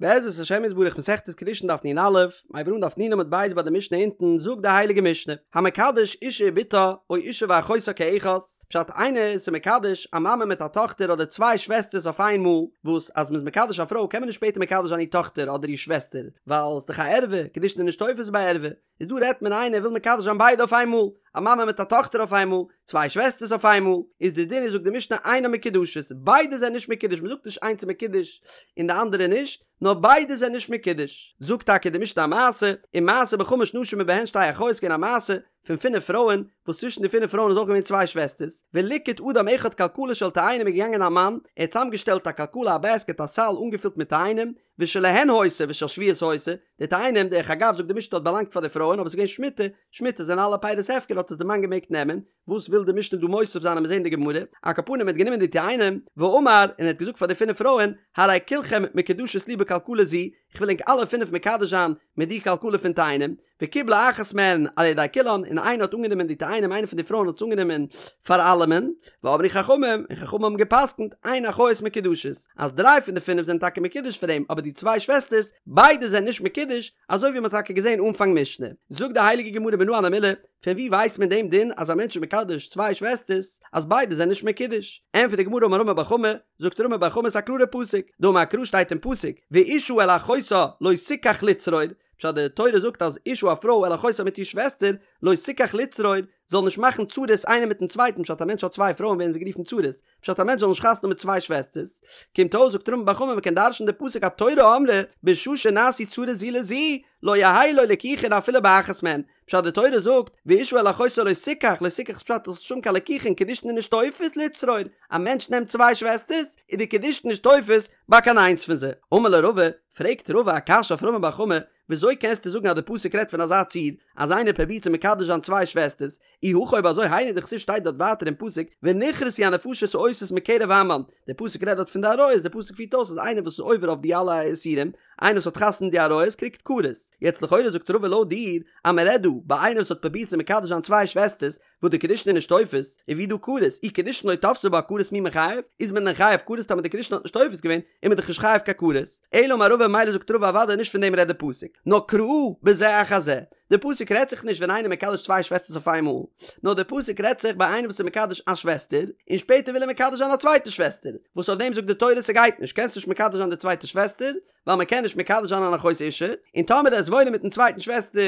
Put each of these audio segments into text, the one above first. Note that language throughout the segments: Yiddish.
בעזרת השם יתברך מסכת קידושין דף נ"א, מ'הייבט אן דף נ עמוד ב' ביי די משנה אונטן, זאגט די הייליגע משנה, המקדש אישה ובתה או אישה ואחותה כאחת, פשט איינער איז מקדש א מאמע מיט א טאכטער אדער צוויי שוועסטערס אויף איין מאל, וואס אז מ'איז מקדש א פרוי קען מען נישט שפעטער מקדש זיין איר טאכטער אדער איר שוועסטער, ווייל ס'איז דאך א ערווה, קידושין איז נישט תופס ביי ערווה, איז דא רעדט מען איינער וויל מקדש זיין ביידע אויף איין מאל, א מאמע מיט א טאכטער אויף איין מאל, צוויי שוועסטערס אויף איין מאל, איז די דין איז זאגט די משנה אינן מקודשות, ביידע זענען נישט מקודש, מען זאגט נישט איינס איז מקודש און די אנדערע נישט, נאר ביידע זענען נישט מקודש. זאגט טאקע די משנה א מעשה, ומעשה בחמש נשים ובהן שתי אחיות געווען א מעשה פון פינף פרויען, וואס צווישן די פינף פרויען איז אויך געווען צוויי שוועסטערס, וליקט אדם אחד כלכלה של תאנים איז געגאנגען א מאן, ער האט צוזאמגעשטעלט א כלכלה א בעסקעט א סל אנגעפילט מיט תאנים, ושלהן היתה ושל שביעית היתה, די תאנים, דרך אגב זאגט די משנה האט באלאנגט פאר די פרויען אבער עס איז געווען שמיטה, שמיטה זענען אלע פירות הפקר האט עס די מאן געמעגט נעמען, וואס וויל די משנה דא מוסיף זיין עמיר זעהן אין די גמרא, על כל פנים ער האט גענומען די תאנים, ואמר, און ער האט געזאגט פאר די פינף פרויען, הרי כולכם מקודשות לי בכלכלה זו, איך וויל ענק אלע פינף מקדש זיין מיט די כלכלה פון תאנים, וקיבלה אחת מהן על ידי כולן, און איינער האט אנגענומען די תאנים, איינע פון די פרויען האט עס אנגענומען פאר אלעמען, ואמרו חכמים, און חכמים האבן גע'פסק'נט, אין אחיות מקודשות, אז דריי פון די פינף זענען טאקע מקודש פאר אים, אבער די צוויי שוועסטערס, ביידע זענען נישט מקודש, אזוי ווי מען האט טאקע געזען אנפאנג משנה. זאגט די הייליגע גמרא מנא הני מילי, פון וואו ווייסט מען דעם דין אז א מענטש איז מקדש צוויי שוועסטערס, אז ביידע זענען נישט מקודש? ענטפערט די גמרא אמר רמי בר חמא, זאגט רמי בר חמא ס'איז א קלארע פסוק, דאמר קרא שטייט אין פסוק, ואשה אל אחותה לא תקח לצרור, פשט די תורה זאגט אז אשה א פרוי אל אחותה מיט איר שוועסטער לא תקח לצרור זאל נישט מאכן צרות איינער מיטן צווייטן פשט א מענטש האט צוויי פרויען ווערן זיי גערופן צרות פשט א מענטש זאל נישט חתונה האבן מיט צוויי שוועסטערס קומט אויס זאגט רמי בר חמא מ'קען דרש'ן די פסוק התורה אמרה בשעה שנעשו צרות זו לזו לא יהא לו ליקוחין אפילו באחת מהן פשט די תורה זאגט ואשה אל אחותה לא תקח לא תקח איז פשט זאלסט נישט האבן קיין ליקוחין קידושין איז נישט תופס לצרור א מענטש נעמט צוויי שוועסטערס איז די קידושין נישט תופס ביי קיין איינס פון זיי אמר ליה רבא פרעגט רבא א קשיא אויף רמי בר חמא, וויאזוי קענסטו זאגן אז די פסוק רעדט פון אזא ציור, אז איינער פרובירט צו מקדש זיין צוויי שוועסטערס, אי הכי אויב אזוי היינו דכתיב שטייט דארט ווייטער אין פסוק ונכרתו הנפשות העושות מקרב עמם, די פסוק רעדט דארט פון די עריות, די פסוק פירט אויס אז איינער וואס איז עובר אויף די אלע איסורים, איינער וואס האט חתונה די עריות קריגט כרת. יעצט לכאורה זאגט רבא לויט דיר אז מען רעדט דא ביי איינער וואס האט פרובירט צו מקדש זיין צוויי שוועסטערס, וואס די קידושין איז נישט תופס, איז ווי דא כרת, אי קידושין לא תפסי בה כרת מי מיחייב, איז מען דען חייב כרת טאמער די קידושין האט נישט תופס געווען, איז מען דאך נישט חייב קיין כרת, אלא אמר רבא מילא זאגט רבא אוודאי נישט פון דעם רעדט די פסוק, נאר קראי בזה אחר זה, די פסוק רעדט זיך נישט ווען איינער מקדש צוויי שוועסטערס אויף איינמאל, נאר די פסוק רעדט זיך ביי איינער וואס איז מקדש א שוועסטער, און שפעטער וויל ער מקדש זיין א צווייטע שוועסטער, וואס אויף דעם זאגט די תורה ס'גייט נישט, קענסט נישט מקדש זיין די צווייטע שוועסטער, ווייל מען קען נישט מקדש זיין אן אחות אשה, און טאמער דו וועסט וואוינען מיטן צווייטן שוועסטער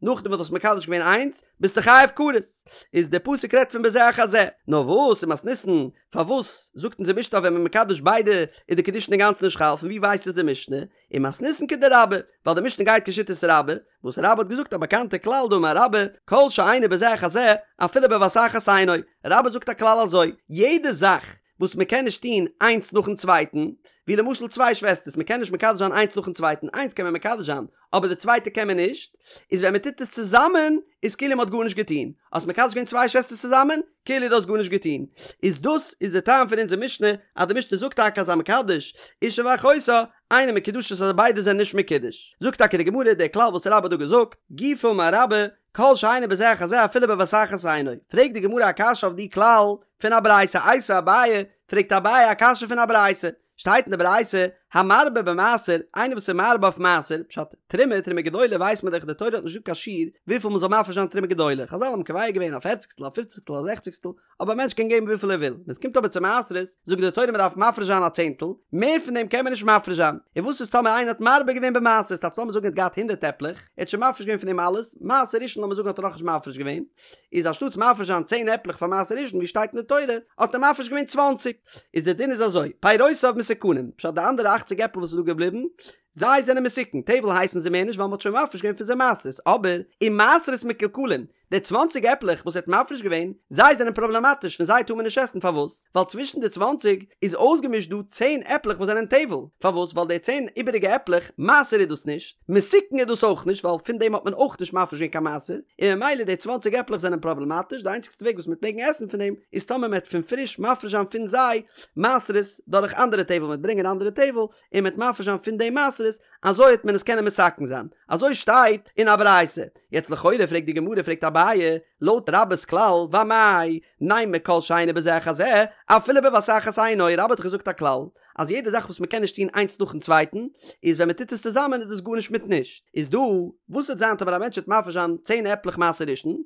נאכדעם וואס דו האסט מקדש געווען איינס, ביסטו חייב כרת. איז דער פסוק רעדט פון בזה אחר זה. נאר וואס ומתניתין, פארוואס זאגט אונזער משנה אז ווען מען מקדש ביידע איז די קידושין אינגאנצן נישט חל, פון ווי ווייסט עס די משנה? ומתניתין כדרבה, ווייל די משנה גייט כשיטת רבה, וואס רבה האט געזאגט א באקאנטע כלל דאמר רבה, כל שאינו בזה אחר זה, אפילו בבת אחת אינו. רבה זאגט א כלל אזוי, יעדע זאך וואס מען קען נישט טון איינס נאכן צווייטן, ווי למשל צוויי שוועסטערס, מען קען נישט מקדש זיין איינס נאכן צווייטן, איינס קען מען מקדש זיין, אבער די צווייטע קען מען נישט, איז ווען מען טוט עס צוזאמען, איז כאילו מען האט גארנישט געטון, האסט מקדש געווען צוויי שוועסטערס צוזאמען, כאילו דו האסט גארנישט געטון. איז דאס איז די טעם פון אונזער משנה, אז די משנה זאגט טאקע אז המקדש אשה ואחותה, אינן מקודשות אז ביידע זענען נישט מקודש. זאגט טאקע די גמרא די כלל וואס רבה האט דא געזאגט, גופא אמר רבה, כל שאינו בזה אחר זה אפילו בבת אחת אינו. פרעגט די גמרא א קשיא אויף די כלל פון א ברייתא, איתיביה אביי, פרעגט אביי א קשיא פון א ברייתא, שטייט אין די ברייתא, המרבה במעשר, איינער וואס איז מרבה אויף מעשר, פשט, תרומה, תרומה גדולה ווייסט מען דאך די תורה האט נישט געזאגט קיין שיעור וויפיל מען זאל מפריש זיין תרומה גדולה, חזל האבן קובע געווען א פערציגסטל, א פופציגסטל, א זעכציגסטל, אבער א מענטש קען געבן וויפיל ער וויל, ווען עס קומט אבער צו מעשרות, זאגט די תורה מען דארף מפריש זיין א צענטל, מער פון דעם קען מען נישט מפריש זיין, און וואס איז טאמער איינער האט מרבה געווען במעשר, ס'טייטש לאמיר זאגן ער האט געהאט הונדערט עפלעך, ער האט שוין מפריש געווען פון דעם אלעס, מעשר ראשון לאמיר זאגן האט ער נאכנישט מפריש געווען, איז אנשטאטס מפריש זיין צען עפלעך פאר מעשר ראשון ווי שטייט אין די תורה, האט ער מפריש געווען צוואנציג, איז די דין איז אזוי, פירותיו מתוקנים, פשט די אנדערע אכציג עפל וואס איז דא געבליבן, זיי זענען מתוקן, טבל הייסן זיי מער נישט ווייל מען האט שוין מפריש געווען פון זיי מעשרות, אבער, ומעשרות מקולקלין, די צוואנציג עפלעך וואס ער האט מפריש געווען, זיי זענען פראבלעמאטיש, פון זיי טאר מען נישט עסן, פארוואס? ווייל צווישן די צוואנציג איז אויסגעמישט דא צען עפלעך וואס זענען טבל, פארוואס? ווייל די צען איבעריגע עפלעך, מעשר איז דאס נישט, מתוקן איז דאס אויך נישט, ווייל פון דעם האט מען אויך נישט מפריש געווען קיין מעשר, און ממילא די צוואנציג עפלעך זענען פראבלעמאטיש, די איינציגסטע וועג וואס מ'וועט מעגן עסן פון דעם, איז טאמער מ'וועט פון פריש מפריש זיין פון זיי מעשרות דורך אנדערע טבל, מ'וועט ברענגען אנדערע טבל, און מ'וועט מפריש זיין פון דעם מעשרות, אזוי וועט מען עס קענען מתקן זיין. אזוי שטייט אין א ברייתא. יעצט לכאורה פרעגט די גמרא פרעגט אביי, לויט רבה'ס כלל, ואמאי, נימא כל שאינו בזה אחר זה, אפילו בבת אחת אינו, רבה האט דאך געזאגט א כלל, אז יעדע זאך וואס מ'קען נישט טון איינס נאכן צווייטן, איז ווען מ'טוט עס צוזאמען איז דאס גארנישט מיט נישט. איז דא, וואס וועט זיין טאמער א מענטש וועט מפריש זיין צען עפלעך מעשר ראשון,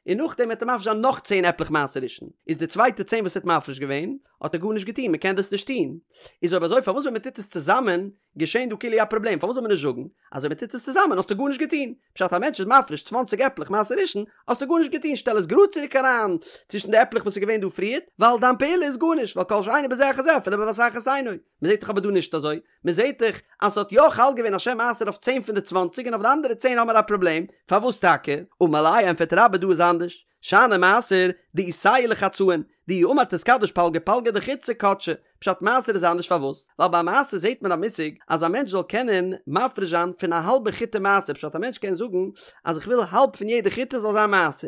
און נאכדעם וועט ער מפריש זיין נאך צען עפלעך מעשר ראשון, איז די צווייטע צען וואס ער האט מפריש געווען, האט ער גארנישט געטון, מ'קען דאס נישט טון. איז אויב אזוי פארוואס ווען מ'טוט עס צוזאמען געשען דא כאילו א פראבלעם, פארוואס זאל מען נישט זאגן אז אויב מ'טוט עס צוזאמען האסטו גארנישט געטון? פשט א מענטש איז מפריש צוואנציג עפלעך מעשר ראשון, האסטו גארנישט געטון, שטעל עס גראד צוריק אריין צווישן די עפלעך וואס איז געווען דא פריערט, ווייל דיין פעולה איז גארנישט, ווייל כל שאינו בזה אחר זה אפילו בבת אחת אינו. מ'זעט דאך אבער דא נישט אזוי, מ'זעט דאך אז ס'האט יא חל געווען א שם מעשר אויף צען פון די צוואנציג און אויף די אנדערע צען האמער א פראבלעם, פארוואס טאקע? אמר ליה ענפערט רבה דא איז אנדערש, שאני מעשר דאיתיה לחצאין, דאי אמר תתקדש פלגא פלגא דחיטתא קדשה, פשט מעשר איז אנדערש פארוואס? ווייל ביי מעשר זעהט מען א מושג אז א מענטש זאל קענען מפריש זיין פון א האלבע חיטה מעשר פשט א מענטש קען זאגן אז איך וויל האלב פון יעדע חיטה זאל זיין מעשר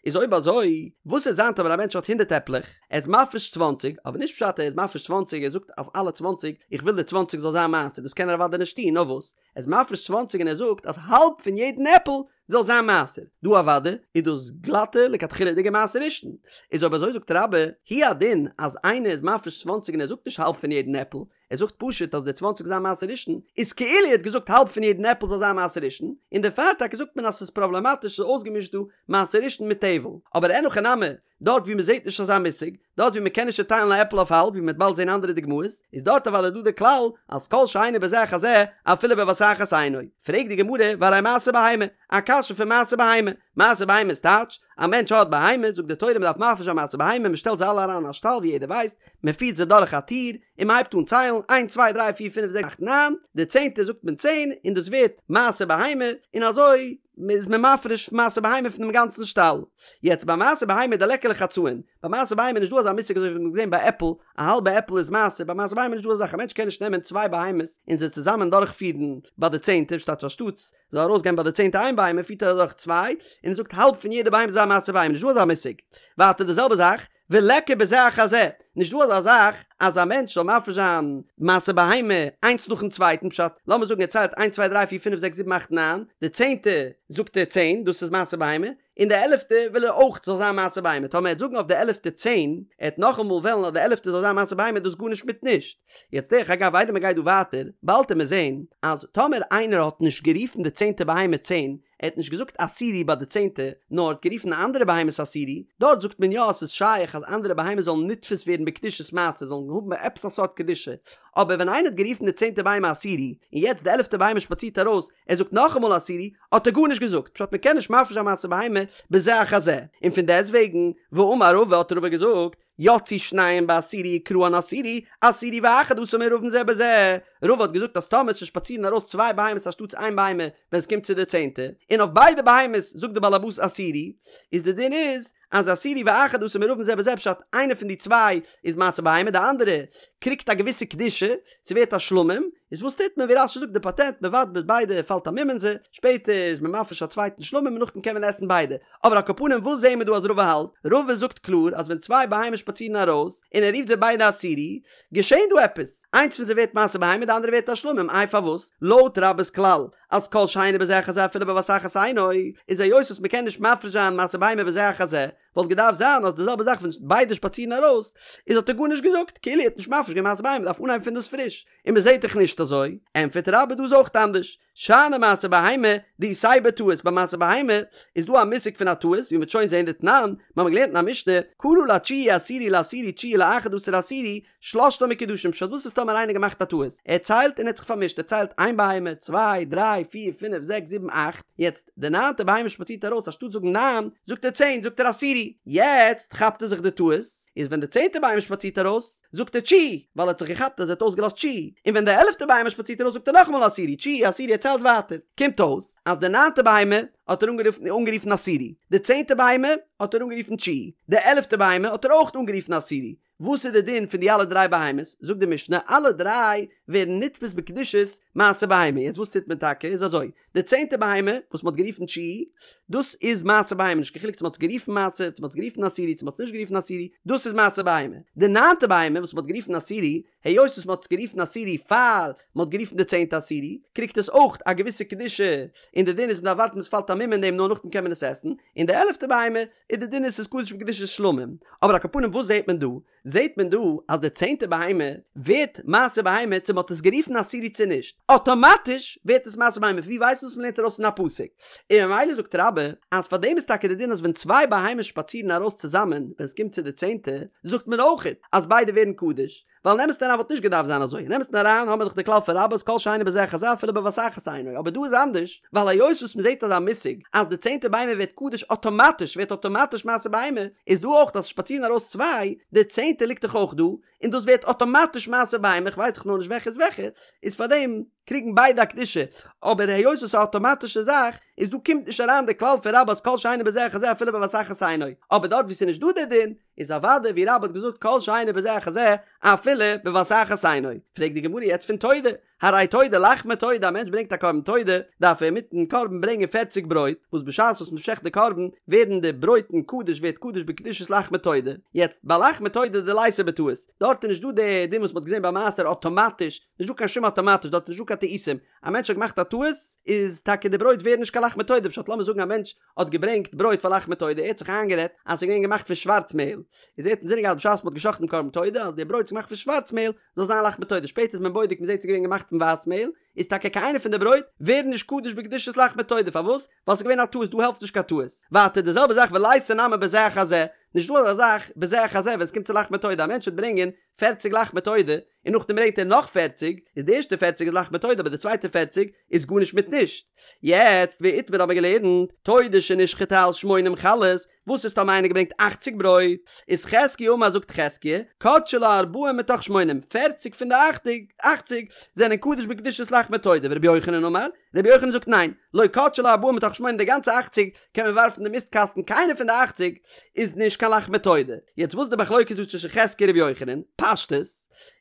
איז אויב אזוי וואס וועט זיין טאמער א מענטש האט הונדערט עפלעך ער איז מפריש צוואנציג אבער נישט פשט ער איז מפריש צוואנציג ער זאגט אויף אלע צוואנציג איך וויל די צוואנציג זאל זיין מעשר דאס קען ער אוודאי נישט טון נאר וואס ער איז מפריש צוואנציג און ער זאגט אז האלב פון יעדן עפל זאל זיין מעשר. דא אוודאי איז דאס גלאטע לכתחילה'דיגע מעשר ראשון. איז אויב אזוי זאגט רבה, הוא הדין אז איינער איז מפריש צוואנציג און ער זאגט נישט האלב פון יעדן עפל, ער זאגט פשוט אז די צוואנציג זיין מעשר ראשון, איז כאילו ער האט געזאגט האלב פון יעדן עפל זאל זיין מעשר ראשון, און דערפאר טאקע זאגט מען אז ס'איז פראבלעמאטיש ס'איז אויסגעמישט דא מעשר ראשון מיט טבל. אבער אין הכי נמי, דארט ווי מ'זעט נישט אזא מושג, דארט ווי מ'קען נישט צעטיילן א עפל אויף האלב, ווי מ'וועט באלד זען אנדערע דוגמאות, איז דארט אוודאי דא די כלל אז כל שאינו בזה אחר זה אפילו בבת אחת אינו. פרעגט די גמרא, והרי מעשר בהמה, א קשיא פון מעשר בהמה. מעשר בהמה איז טייטש, א מענטש האט בהמות, זאגט די תורה מ'דארף מפריש זיין מעשר בהמה, מ'שטעלט זיי אלע אריין אין א שטאל ווי יעדער ווייסט, מ'פירט זיי דורך א טיר, און מ'הייבט אן ציילן, איינס צוויי דריי פיר פינף זעקס אכט ניין, די צענטע זאגט מען צען, און דאס ווערט מעשר בהמה, און אזוי איז מען מפריש מעשר בהמה פונעם גאנצן שטאל. יעצט ביי מעשר בהמה דליכא לחצאין, ביי מעשר בהמה איז נישט דא אזא מושג אזוי ווי מ'האט געזען ביי עפל, א האלבע עפל איז מעשר, ביי מעשר בהמה איז נישט דא אזא זאך, א מענטש קען נישט נעמען צוויי בהמות און זיי צוזאמען דורכפירן ביי די צענטע, שטאט אנשטאטס זאל ארויסגיין ביי די צענטע איין בהמה פירט ער אדורך צוויי, און ער זאגט האלב פון יעדע בהמה איז א מעשר בהמה, נישט דא אזא מושג. ווייטער די זעלבע זאך, וליכא בזה אחר זה, נישט דא אזא זאך אז א מענטש זאל מפריש זיין מעשר בהמה איינס נאכן צווייטן, פשט, לאמיר זאגן ער ציילט איינס צוויי דריי פיר פינף זעקס זיבן אכט ניין, די צענטע זאגט ער צען, דאס איז מעשר בהמה, און די עלעפטע וויל ער אויך זאל זיין מעשר בהמה, טאמער ער וועט זאגן אויף די עלעפטע צען, ער וועט נאכאמאל וועלן אז די עלעפטע זאל זיין מעשר בהמה איז דאס גארנישט מיט נישט. יעצט דרך אגב איידער מען גייט דא ווייטער, באלד וועט מען זען אז טאמער איינער האט נישט גערופן די צענטע בהמה צען, ער האט נישט געזאגט עשירי ביי די צענטע, נאר האט גערופן אנדערע בהמות עשירי, דארט זאגט מען יא אז ס'איז שייך אז אנדערע בהמות זאלן נתפס ווערן בקדושת מעשר, זאלן האבן עפעס א סארט קדושה, אבער ווען איינער האט גערופן די צענטע בהמה עשירי, און יעצט די עלעפטע בהמה שפאצירט ארויס, ער זאגט נאכאמאל עשירי, האט ער גארנישט געזאגט, פשט מ'קען נישט מפריש זיין מעשר בהמה בזה אחר זה, און פון דעסטוועגן, ואמר רבא האט רבא געזאגט, יצאו שניהם בעשירי וקראן עשירי, עשירי ואחד עשר מעורבין זה בזה. רבא האט געזאגט אז טאמער ס'שפאצירן ארויס צוויי בהמות אנשטאטס איין בהמה ווען ס'קומט צו די צענטע, און אויף ביידע בהמות זאגט די בעל הבית עשירי, איז די דין איז אז עשירי ואחד עשר מעורבין זה בזה פשט איינע פון די צוויי איז מעשר בהמה די אנדערע קריגט א געוויסע קדושה, ס'ווערט א שלמים, איז וואס טוט מען ווי רש"י זאגט די פאטענט מ'ווארט ביז ביידע פאלט א מום אין זיי, שפעטער איז מען מפריש א צווייטן שלמים און נאכדעם קען מען עסן ביידע. אבער על כל פנים וואס זעהן מיר דא אז רבא האלט? רבא זאגט קלאר אז ווען צוויי בהמות שפאצירן ארויס און ער רופט זיי ביידע עשירי, געשעהן דא עפעס, איינס פון זיי ווערט מעשר בהמה די אנדערע ווערט א שלמים, איי פארוואס? לויט רבה'ס כלל אז כל שאינו בזה אחר זה אפילו בבת אחת אינו, איז היות וואס מ'קען נישט מפריש זיין מעשר בהמה בזה אחר זה, וואלט געדארפט זיין אז די זעלבע זאך ווען ביידע שפאצירן ארויס, איז האט ער גארנישט געזאגט, כאילו ער האט נישט מפריש געווען מעשר בהמה, מ'דארף אנהייבן פון דאס פריש, און מ'זעהט דאך נישט אזוי, ענטפערט רבה דא איז אויך אנדערש, שאני מעשר בהמה דאיתיה בטעות, ביי מעשר בהמה איז דא א מושג פון א טעות, ווי מ'וועט שוין זעהן דתנן, מ'האמיר געלערנט אין א משנה, קרא לתשיעי עשירי לעשירי תשיעי לאחד עשר עשירי, שלשתן מקודשין, פשט וואס איז טאמער איינער געמאכט א טעות, ער ציילט און ער האט זיך פארמישט, ער ציילט איין בהמה, צוויי, דריי, פיר, פינף, זעקס, זיבן, אכט, יעצט די ניינטע בהמה שפאצירט ארויס אנשטאט זאגן ניין, זאגט ער צען, זאגט ער עשירי, יעצט כאפט ער זיך די טעות, איז ווען די צענטע בהמה שפאצירט ארויס, זאגט ער תשיעי, ווייל ער האט זיך געכאפט אז ער האט אויסגעלאזט תשיעי, און ווען די עלעפטע בהמה שפאצירט ארויס זאגט ער נאכאמאל עשירי, תשיעי, עשירי, ער ציילט ווייטער. קומט אויס אז די ניינטע בהמה האט ער אנגערופן עשירי, די צענטע בהמה האט ער אנגערופן תשיעי, די עלעפטע בהמה האט ער אויך אנגערופן עשירי. וואס איז די דין פון די אלע דריי בהמות? זאגט די משנה, אלע דריי ווערן נתפס בקדושת מעשר בהמה. יעצט וואס טוט מען טאקע? איז אזוי, די צענטע בהמה וואס מ'האט גערופן תשיעי, דאס איז מעשר בהמה, נישט קיין חילוק צו מ'האט עס גערופן מעשר, צו מ'האט עס גערופן עשירי, צו מ'האט עס נישט גערופן עשירי, דאס איז מעשר בהמה. די ניינטע בהמה וואס מ'האט גערופן עשירי, היות וואס מ'האט עס גערופן עשירי פאר מ'האט גערופן די צענטע עשירי, קריגט עס אויך א געוויסע קדושה, און די דין איז מ'דארף ווארטן ביז ס'פאלט א מום אין דעם נאר נאכדעם קען מען עס עסן, און די עלעפטע בהמה, איז די דין איז ס'איז קדוש בקדושת שלמים. אבער על כל פנים וואס זעט מען דא? זעט מען דא אז די צענטע בהמה ווערט מעשר בהמה צו מ'האט עס גערופן עשירי צו נישט, אטאמאטיש ווערט עס מעשר בהמה, ווי ווייסט מען עס? מ'לערנט ארויס פון א פסוק, און ממילא זאגט רבה אז פאר דעם איז טאקע די דין אז ווען צוויי בהמות שפאצירן ארויס צוזאמען ווען עס קומט צו די צענטע זאגט מען אויכעט אז ביידע ווערן קדוש, ווייל אין אמת'ן אריין וואלט נישט געדארפט זיין אזוי, אין אמת'ן אריין האמיר דאך די כלל פון רבה אז כל שאינו בזה אחר זה אפילו בבת אחת אינו, אבער דא איז אנדערש, ווייל היות וואס מ'זעט אזא מושג אז די צענטע בהמה ווערט קדוש אטאמאטיש ווערט אטאמאטיש מעשר בהמה, איז דא אויך אז שפאצירן ארויס צוויי, די צענטע ליגט דאך אויך דא, און דאס ווערט אטאמאטיש מעשר בהמה, כ'ווייס דאך נאר נישט וועלכע איז וועלכע, איז פארדעם קריגן ביידע א קדושה, אבער היות עס איז א אטאמאטישע זאך, איז דא קומט נישט אריין די כלל פון רבה אז כל שאינו בזה אחר זה אפילו בבת אחת אינו, אבער דארט וואו ס'איז נישט דא די דין, איז אוודאי ווי רבה האט געזאגט כל שאינו בזה אחר זה אפילו בבת אחת אינו. פרעגט די גמרא יעצט פון תודה, הרי תודה לחמי תודה א מענטש ברענגט א קרבן תודה דארף ער מיטן קרבן ברענגען פערציג ברויט, וואס בשעת וואס מען שעכט די קרבן ווערן די ברויטן קדוש ווערט קדוש בקדושת לחמי תודה, יעצט ביי לחמי תודה דליתא בטעות, דארט איז נישט דא די דין וואס מען האט געזען ביי מעשר אטאמאטיש, נישט דא קיין שום אטאמאטיש דארט איז נישט דא קיין טעותים, א מענטש האט געמאכט א טעות איז טאקע די ברויט ווערן נישט קיין לחמי תודה, פשט לאמיר זאגן א מענטש האט געברענגט ברויט פאר לחמי תודה, ער האט זיך איינגערעדט אז ס'איז געווען געמאכט פון שווארץ מעהל, איז ער האט אינזינען געהאט בשעת מ'האט געשאכטן דעם קרבן תודה אז די ברויט איז געמאכט פון שווארץ מעהל זאל זיין לחמי תודה, שפעטער איז מען בודק מ'זעט ס'איז געווען געמאכט פון ווייס מעהל, איז טאקע קיין איינע פון די ברויט ווערן נישט קדוש בקדושת לחמי תודה, פארוואס? ווייל ס'איז געווען א טעות, דא העלפט נישט קיין טעות. ווייטער די זעלבע זאך וליתא נמי בזה אחר זה, נישט דא אזא זאך בזה אחר זה ווען ס'קומט צו לחמי תודה, א מענטש וועט ברענגען פערציג לחמי תודה, און נאכדעם ברענגט ער נאך פערציג, איז די ערשטע פערציג איז לחמי תודה אבער די צווייטע פערציג איז גארנישט מיט נישט. יעצט ואיתמר האבן מיר געלערנט, תודה שנשחטה על שמונים חלות, וואס איז טאמער איינער געברענגט אכציג ברויט, איז חזקיה אמר זאגט חזקיה, קדשי לה ארבעים מתוך שמונים, פערציג פון די אכציג זענען קדוש בקדושת לחמי תודה, ורבי יוחנן אמר, רבי יוחנן זאגט ניין, לא קדשי לה ארבעים מתוך שמונים די גאנצע אכציג קען מען ווארפן די מיסט קאסטן קיינע פון די אכציג איז נישט קיין לחמי תודה. יעצט וואס איז די מחלוקת דא צווישן חזקיה און רבי יוחנן? פשטות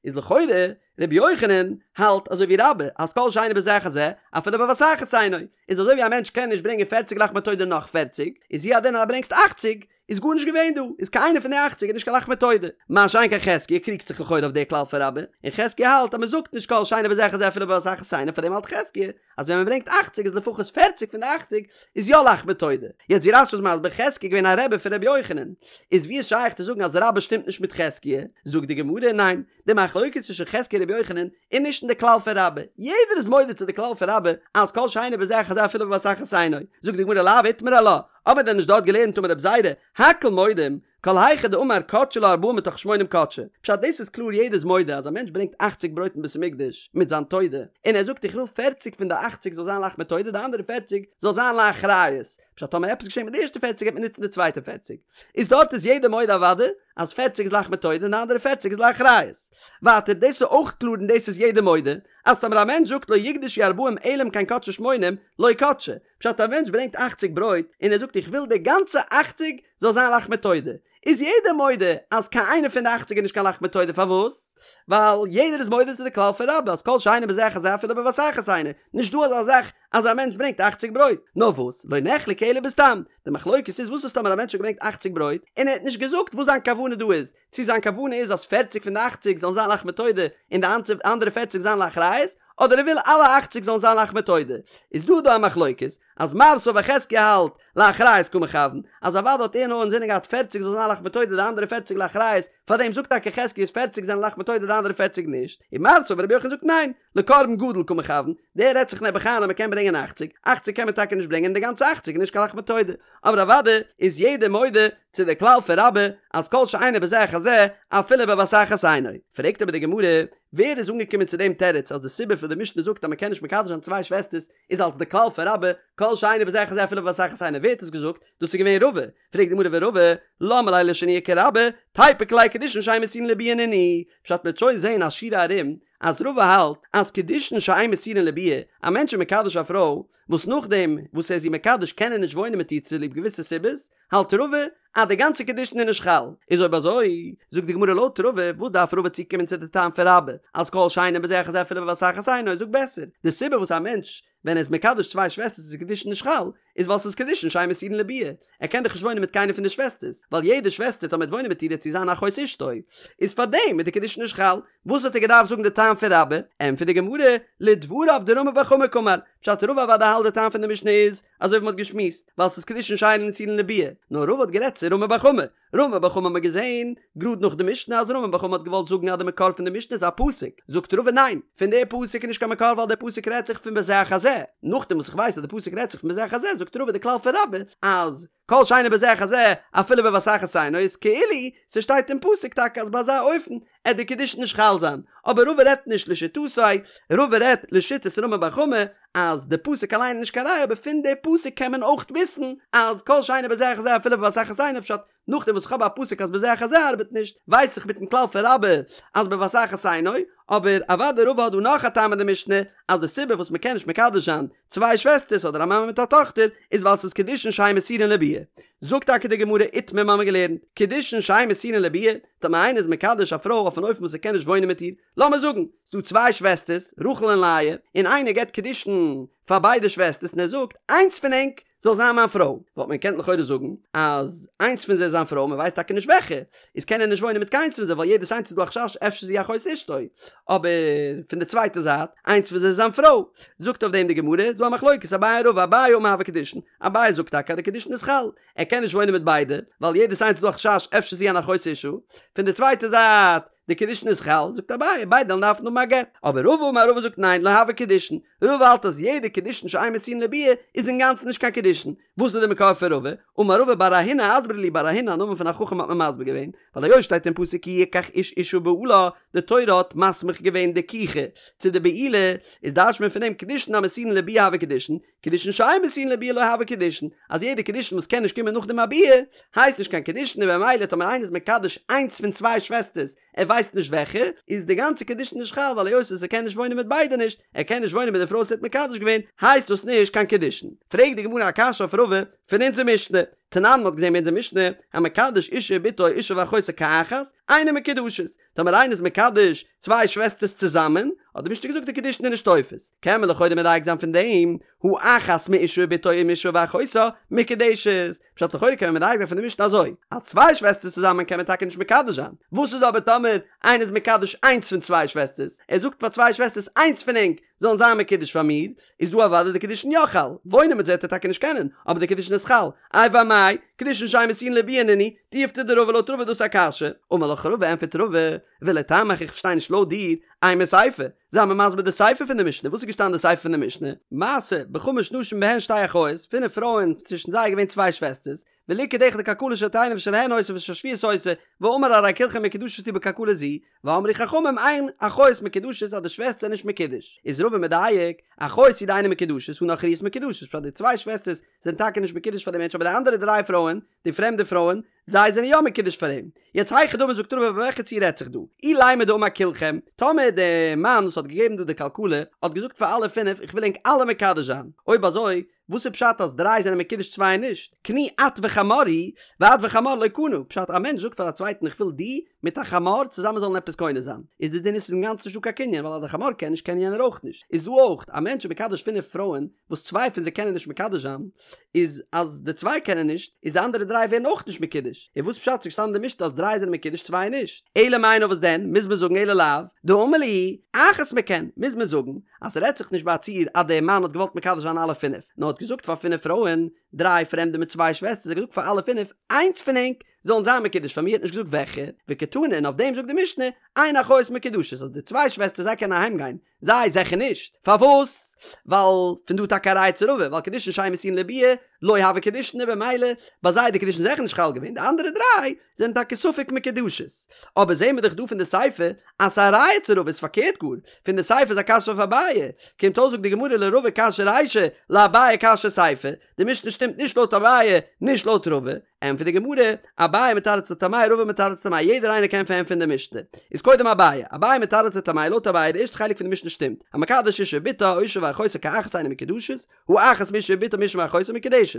איז לכאורה רבי יוחנן האלט אזוי ווי רבה אז כל שאינו בזה אחר זה אפילו בבת אחת אינו איז אזוי ווי א מענטש קען נישט ברענגען פערציג לחמי תודה נאך פערציג איז הוא הדין אז ברענגסט אכציג איז גארנישט געווען דא איז קיין איינע פון די אכציג איז נישט קיין לחמי תודה. מה שאין כן חזקיה קריגט זיך לכאורה אויף די כלל פון רבה און חזקיה האלט אז מען זאגט נישט כל שאינו בזה אחר זה אפילו בבת אחת אינו פארדעם האלט חזקיה אז ווען מען ברענגט אכציג איז לפחות פערציג פון די אכציג איז יא לחמי תודה. יעצט ווי רש"י איז מסביר חזקיה איז געווען א רבי פון רבי יוחנן, איז ווי איז שייך צו זאגן אז רבה שטימט נישט מיט חזקיה? זאגט די גמרא ניין, די מחלוקת צווישן חזקיה און רבי יוחנן איז נישט אין די כלל פון רבה, יעדער איז מודה צו די כלל פון רבה אז כל שאינו בזה אחר זה אפילו בבת אחת אינו, זאגט די גמרא לאו איתמר עלה, האבן מיר דען נישט דארט געלערנט אמר רב זירא, הכל מודים, כל היכא דאמר קדשי לה ארבעים מתוך שמונים קדשי, פשט דאס איז קלאר יעדער איז מודה אז א מענטש ברענגט אכציג ברויט אין בית המקדש מיט זיין תודה און ער זאגט איך וויל פערציג פון די אכציג זאל זיין לחמי תודה די אנדערע פערציג זאל זיין לאחריות, פשט טאמער עפעס געשעט מיט די ערשטע פערציג גייט מען נוצן די צווייטע פערציג, איז דארט איז יעדער מודה אוודאי אז פערציג איז לחמי תודה און די אנדערע פערציג איז לאחריות. ווייטער דאס איז אויך קלאר און דאס איז יעדער מודה אז טאמער א מענטש זאגט לא יוקדשו ארבעים אלא אם כן קדשו שמונים לא קדשי, פשט א מענטש ברענגט אכציג ברויט און ער זאגט איך וויל די גאנצע אכציג זאל זיין לחמי תודה, איז יעדער מודה אז קיין איינע פון די אכציג איז נישט קיין לחמי תודה פארוואס? ווייל יעדער איז מודה צו די כלל פון רבה אז כל שאינו בזה אחר זה אפילו בבת אחת אינו, נישט דא אזא זאך אז א מענטש ברענגט אכציג ברויט, נאר וואס לא נחלקו אלא בסתם, די מחלוקת איז וואס איז טאמער א מענטש האט געברענגט אכציג ברויט און ער האט נישט געזאגט וואס זיין כוונה דא איז, צו זיין כוונה איז אז פערציג פון די אכציג זאלן זיין לחמי תודה און די אנדערע פערציג זיין לאחריות, אדער ער וויל אלע אכציג זאלן זיין לחמי תודה, איז דא דא א מחלוקת, אז מר סבר חזקיה האלט לאחריות קא מכוון, אז אוודאי האט ער נאר אינזינען געהאט פערציג זאל זיין לחמי תודה די אנדערע פערציג לאחריות, פארדעם זאגט טאקע חזקיה אז פערציג זענען לחמי תודה די אנדערע פערציג נישט, און מר סבר רבי יוחנן זאגט ניין, לקרבן גדול קא מכוון, דער רעדט זיך נעבעך איין אז מען קען ברענגען אכציג, אכציג קען מען טאקע נישט ברענגען און די גאנצע אכציג איז נישט קיין לחמי תודה, אבער אוודאי איז יעדער מודה צו די כלל פון רבה אז כל שאינו בזה אחר זה אפילו בבת אחת אינו. פרעגט אבער די גמרא, ווער איז אנגעקומען צו דעם תירוץ אז די סיבה פון די משנה זאגט אז מען קען נישט מקדש זיין צוויי שוועסטערס איז אלס די כלל פון רבה כל שאינו בזה אחר זה אפילו בבת אחת אינו ווער האט עס געזאגט? דאס איז געווען רבא. פרעגט די גמרא ורבא, למה ליה לשנויי כרבה, תיפוק ליה קידושין שאין מסורין לביאה נינהו, פשט מ'וועט שוין זעהן א שורה ארום אז רבא האלט אז קידושין שאין מסורין לביאה, א מענטש איז מקדש א פרוי וואס נאכדעם וואס ער איז איר מקדש קען ער נישט וואוינען מיט איר צוליב געוויסע סיבות, האלט רבא אז די גאנצע קידושין איז נישט חל, איז אויב אזוי זאגט די גמרא לויט רבא וואס דארף רבא צוקומען צו די טעם פון רבה אז כל שאינו בזה אחר זה אפילו בבת אחת אינו, זאג בעסער די סיבה וואס א מענטש ווען ער איז מקדש צוויי שוועסטערס איז קידושין נישט חל איז ווייל ס'איז קידושין שאין מסורין לביאה, ער קען דאך נישט וואוינען מיט קיינער פון די שוועסטערס, ווייל יעדע שוועסטער טאמער ער וועט וואוינען מיט איר וועט זי זיין אחות אשתו, איז פארדעם איז די קידושין נישט חל, וואס האט ער געדארפט זאגן די טעם פון רבה? ענטפערט די גמרא, לדבריו דרמי בר חמא קאמר, פשט רבא אוודאי האלט די טעם פון די משנה איז, אזוי ווי מ'האט געשמועסט, ווייל ס'איז קידושין שאין מסורין לביאה, נאר רבא האט גערעדט צו רמי בר חמא, רמי בר חמא האט מען געזען גראד נאך די משנה אז רמי בר חמא האט געוואלט זאגן אז די מקור פון די משנה איז א פסוק, זאגט רבא ניין, פון די פסוק איז נישט קיין מקור ווייל די פסוק רעדט זיך פון בזה אחר זה, נאכדעם וואס איך ווייס אז די פסוק רעדט זיך פון בזה אחר זה זאגט רבא די כלל פון רבה אז כל שאינו בזה אחר זה אפילו בבת אחת אינו איז כאילו ס'שטייט אין פסוק טאקע אז ביי אזא אופן עט די קידושין נישט חל זיין, אבער רבא רעדט נישט לשיטתו, רבא רעדט לשיטת רמי בר חמא אז די פסוק אליין איז נישט קיין ראיה אבער פון די פסוק קען מען אויך וויסן אז כל שאינו בזה אחר זה אפילו בבת אחת אינו פשט נאכדעם וואס איך האב א פסוק אז בזה אחר זה ארבעט נישט ווייס איך מיטן כלל פון רבה אז בבת אחת אינו, אבער אוודאי רבא האט דא נאך א טעם אין די משנה אז די סיבה וואס מ'קען נישט מקדש זיין צוויי שוועסטערס אדער א מאמע מיט א טאכטער איז ווייל ס'איז קידושין שאין מסורין לביאה. זאגט טאקע די גמרא איתמר מ'האמיר געלערנט קידושין שאין מסורין לביאה, טאמער איינער איז מקדש א פרוי אויף אן אופן וואס ער קען נישט וואוינען מיט איר, לאמיר זאגן ס'דא צוויי שוועסטערס רחל און לאה, און איינער געבט קידושין פאר ביידע שוועסטערס און ער זאגט איינס פון ענק זאל זיין מיין פרוי, וואלט מען געקענט לכאורה זאגן אז איינס פון זיי איז זיין פרוי, מען ווייסט טאקע נישט וועלכע, איז קען ער נישט וואוינען מיט קיינס פון זיי ווייל יעדעס איינס איז דא א חשש אפשר איז זי אחות אשתו, אבער פון די צווייטע זייט, איינס פון זיי איז זיין פרוי. זאגט אויף דעם די גמרא, איז דא א מחלוקת אביי ורבא, אביי אמר הוו קידושין, אביי זאגט טאקע אז די קידושין איז חל, ער קען נישט וואוינען מיט ביידע, ווייל יעדעס איינס איז דא א חשש אפשר איז זי אן אחות אשה, פון די צווייטע זייט, די קידושין איז חל, זאגט אביי, ביידע וועלן דארפן האבן א גט, אבער רבא אמר רבא זאגט ניין, לא הוו קידושין, רבא האלט אז יעדע קידושין שאין מסורין לביאה איז אינגאנצן נישט קיין קידושין, וואס איז די מקור פון רבא? אמר רבא בר אהינא אסברה לי בר אהינא א נאמען פון א חכם האט מען מסביר געווען, ווייל היות שטייט אין פסוק כי יקח איש אשה ובעלה, די תורה האט מסמיך געווען די לקיחה צו די בעילה, איז דרש'ט מען פון דעם קידושין המסורין לביאה הוו קידושין, קידושין שאין מסורין לביאה לא הוו קידושין, אז יעדע קידושין וואס קען נישט קומען נאך דעם א ביאה, הייסט נישט קיין קידושין און במילא טאמער איינער איז מקדש איינס פון צוויי שוועסטערס, ער ווייסט נישט וועלכע, איז די גאנצע קידושין נישט חל ווייל היות ער קען נישט וואוינען מיט ביידע נישט, ער קען נישט וואוינען מיט די פרוי וואס ער האט מקדש געווען, הייסט דאס נישט קיין קידושין. פרעגט די גמרא א קשיא אויף רבא פון אונזער משנה, תנן מ'האט געזען ביי אונזער משנה, המקדש אשה ובתה או אשה ואחותה כאחת, אינן מקודשות, טאמער איינער איז מקדש צוויי שוועסטערס צוזאמען, האט די משנה געזאגט די קידושין איז נישט תופס, קען מען לכאורה מדייק זיין פון דעם, הא אחת מאשה ובתה או מאשה ואחותה מקודשת, פשט לכאורה קען מען מדייק זיין פון די משנה אזוי, אז צוויי שוועסטערס צוזאמען קען מען טאקע נישט מקדש זיין, וואס איז אבער טאמער איינער איז מקדש איינס פון צוויי שוועסטערס, ער זאגט פאר צוויי שוועסטערס איינס פון ענק זאלן זיין מקודש פאר מיר, איז דא אוודאי די קידושין יא חל, וואוינען מיט זיי וועט ער טאקע נישט קענען, אבער די קידושין איז חל, איי ואמאי, קידושין שאין מסורין לביאה נינהו, תיובתא דרבא לויט רבא איז דאס א קשיא, אמר לך רבא ענפערט רבא, ולטעמיך איך פארשטיי נישט לויט דיר, אימא סיפא, זיי מיר מסביר די סיפא פון די משנה, וואס איז געשטאנען די סיפא פון די משנה? מעשה, בחמש נשים בהן שתי אחיות, פינף פרויען, צווישן זיי איז געווען צוויי שוועסטערס, וליקט אחד כלכלה של תאנים ושלהן היתה ושל שביעית היתה, ואמר הרי כולכן מקודשות לי בכלכלה זו, ואמרו חכמים אין אחיות מקודשות אז די שוועסטער נישט מקודש, איז רבא מדייק, אחיות הוא דאינן מקודשות הא נכריות מקודשות, פשט די צוויי שוועסטערס זענען טאקע נישט מקודש פאר די מענטש אבער די אנדערע דריי פרויען, די פרעמדע פרויען, זיי זענען יא מקודש פאר אים. יעצט היכי דמי זאגט רבא ביי וועלכע ציור רעדט זיך דא? אילימא דאמר כולכם, טאמער די מאן וואס האט געגעבן דא די כלכלה האט געזאגט פאר אלע פינף איך וויל ענק אלע מקדש זיין, אויב אזוי וואס איז פשט אז דריי זענען מקודש צוויי נישט? קני את וחמור הוא, ואת וחמור לא קנה, פשט א מענטש זאגט פאר א צווייטן איך וויל דו מיט א חמור צוזאמען זאלן עפעס קונה זיין, איז די דין איז ס'איז אינגאנצן נישטא קיין קנין ווייל אז די חמור קען נישט קען יענער אויך נישט, איז דא אויך א מענטש איז מקדש פינף פרויען וואס צוויי פון זיי קענען נישט מקדש זיין, איז אז די צוויי קענען נישט, איז די אנדערע דריי ווערן אויך נישט מקודש, און וואס פשט ס'איז געשטאנעין אין די משנה אז דריי זענען מקודש צוויי נישט? אלא מאי נאר וואס דען, מוז מען זאגן אלא לאו דאמר להו אחת מכן, מוז מען זאגן אז ס'רעדט זיך נישט ביי א ציור אז דער מאן האט געוואלט מקדש זיין אלע פינף, נאר האט געזאגט פאר פינף פרויען, דריי פרעמדע מיט צוויי שוועסטערס, ער האט געזאגט פאר אלע פינף, איינס פון ענק זאלן זיין מקודש פאר מיר, ער האט נישט געזאגט וועלכע, וקתני און אויף דעם זאגט די משנה, אין אחיות מקודשות אז די צוויי שוועסטערס זיי קענען אהיים גיין, זיי זעכער נישט. פארוואס? ווייל פון דא טאקע א ראיה צו רבא, ווייל קידושין שאין מסורין לביאה, לא הוו קידושין און במילא ביי זיי איז די קידושין זעכער נישט חל געווען, די אנדערע דריי זענען טאקע ספק מקודשות. אבער זעהן מיר דאך דא פון די סיפא אז ס'איז א ראיה צו רבא איז פארקערט גאר, פון די סיפא איז א קשיא אויף אביי, קומט אויס זאגט די גמרא לרבא קשיא רישא, לאביי קשיא סיפא, די משנה שטימט נישט לויט אביי, נישט לויט רבא, ענטפערט די גמרא, אביי מתרץ לטעמיה רבא מתרץ לטעמיה, יעדער איינער קען פארענטפערן די משנה. איז קודם אביי, אביי מתרץ לטעמיה, לויט אביי די ערשטע חלק פון די משנה שטימט, המקדש אשה ובתה או אשה ואחותה כאחת אינן מקודשות, הא אחת מאשה ובתה מאשה ואחותה מקודשת.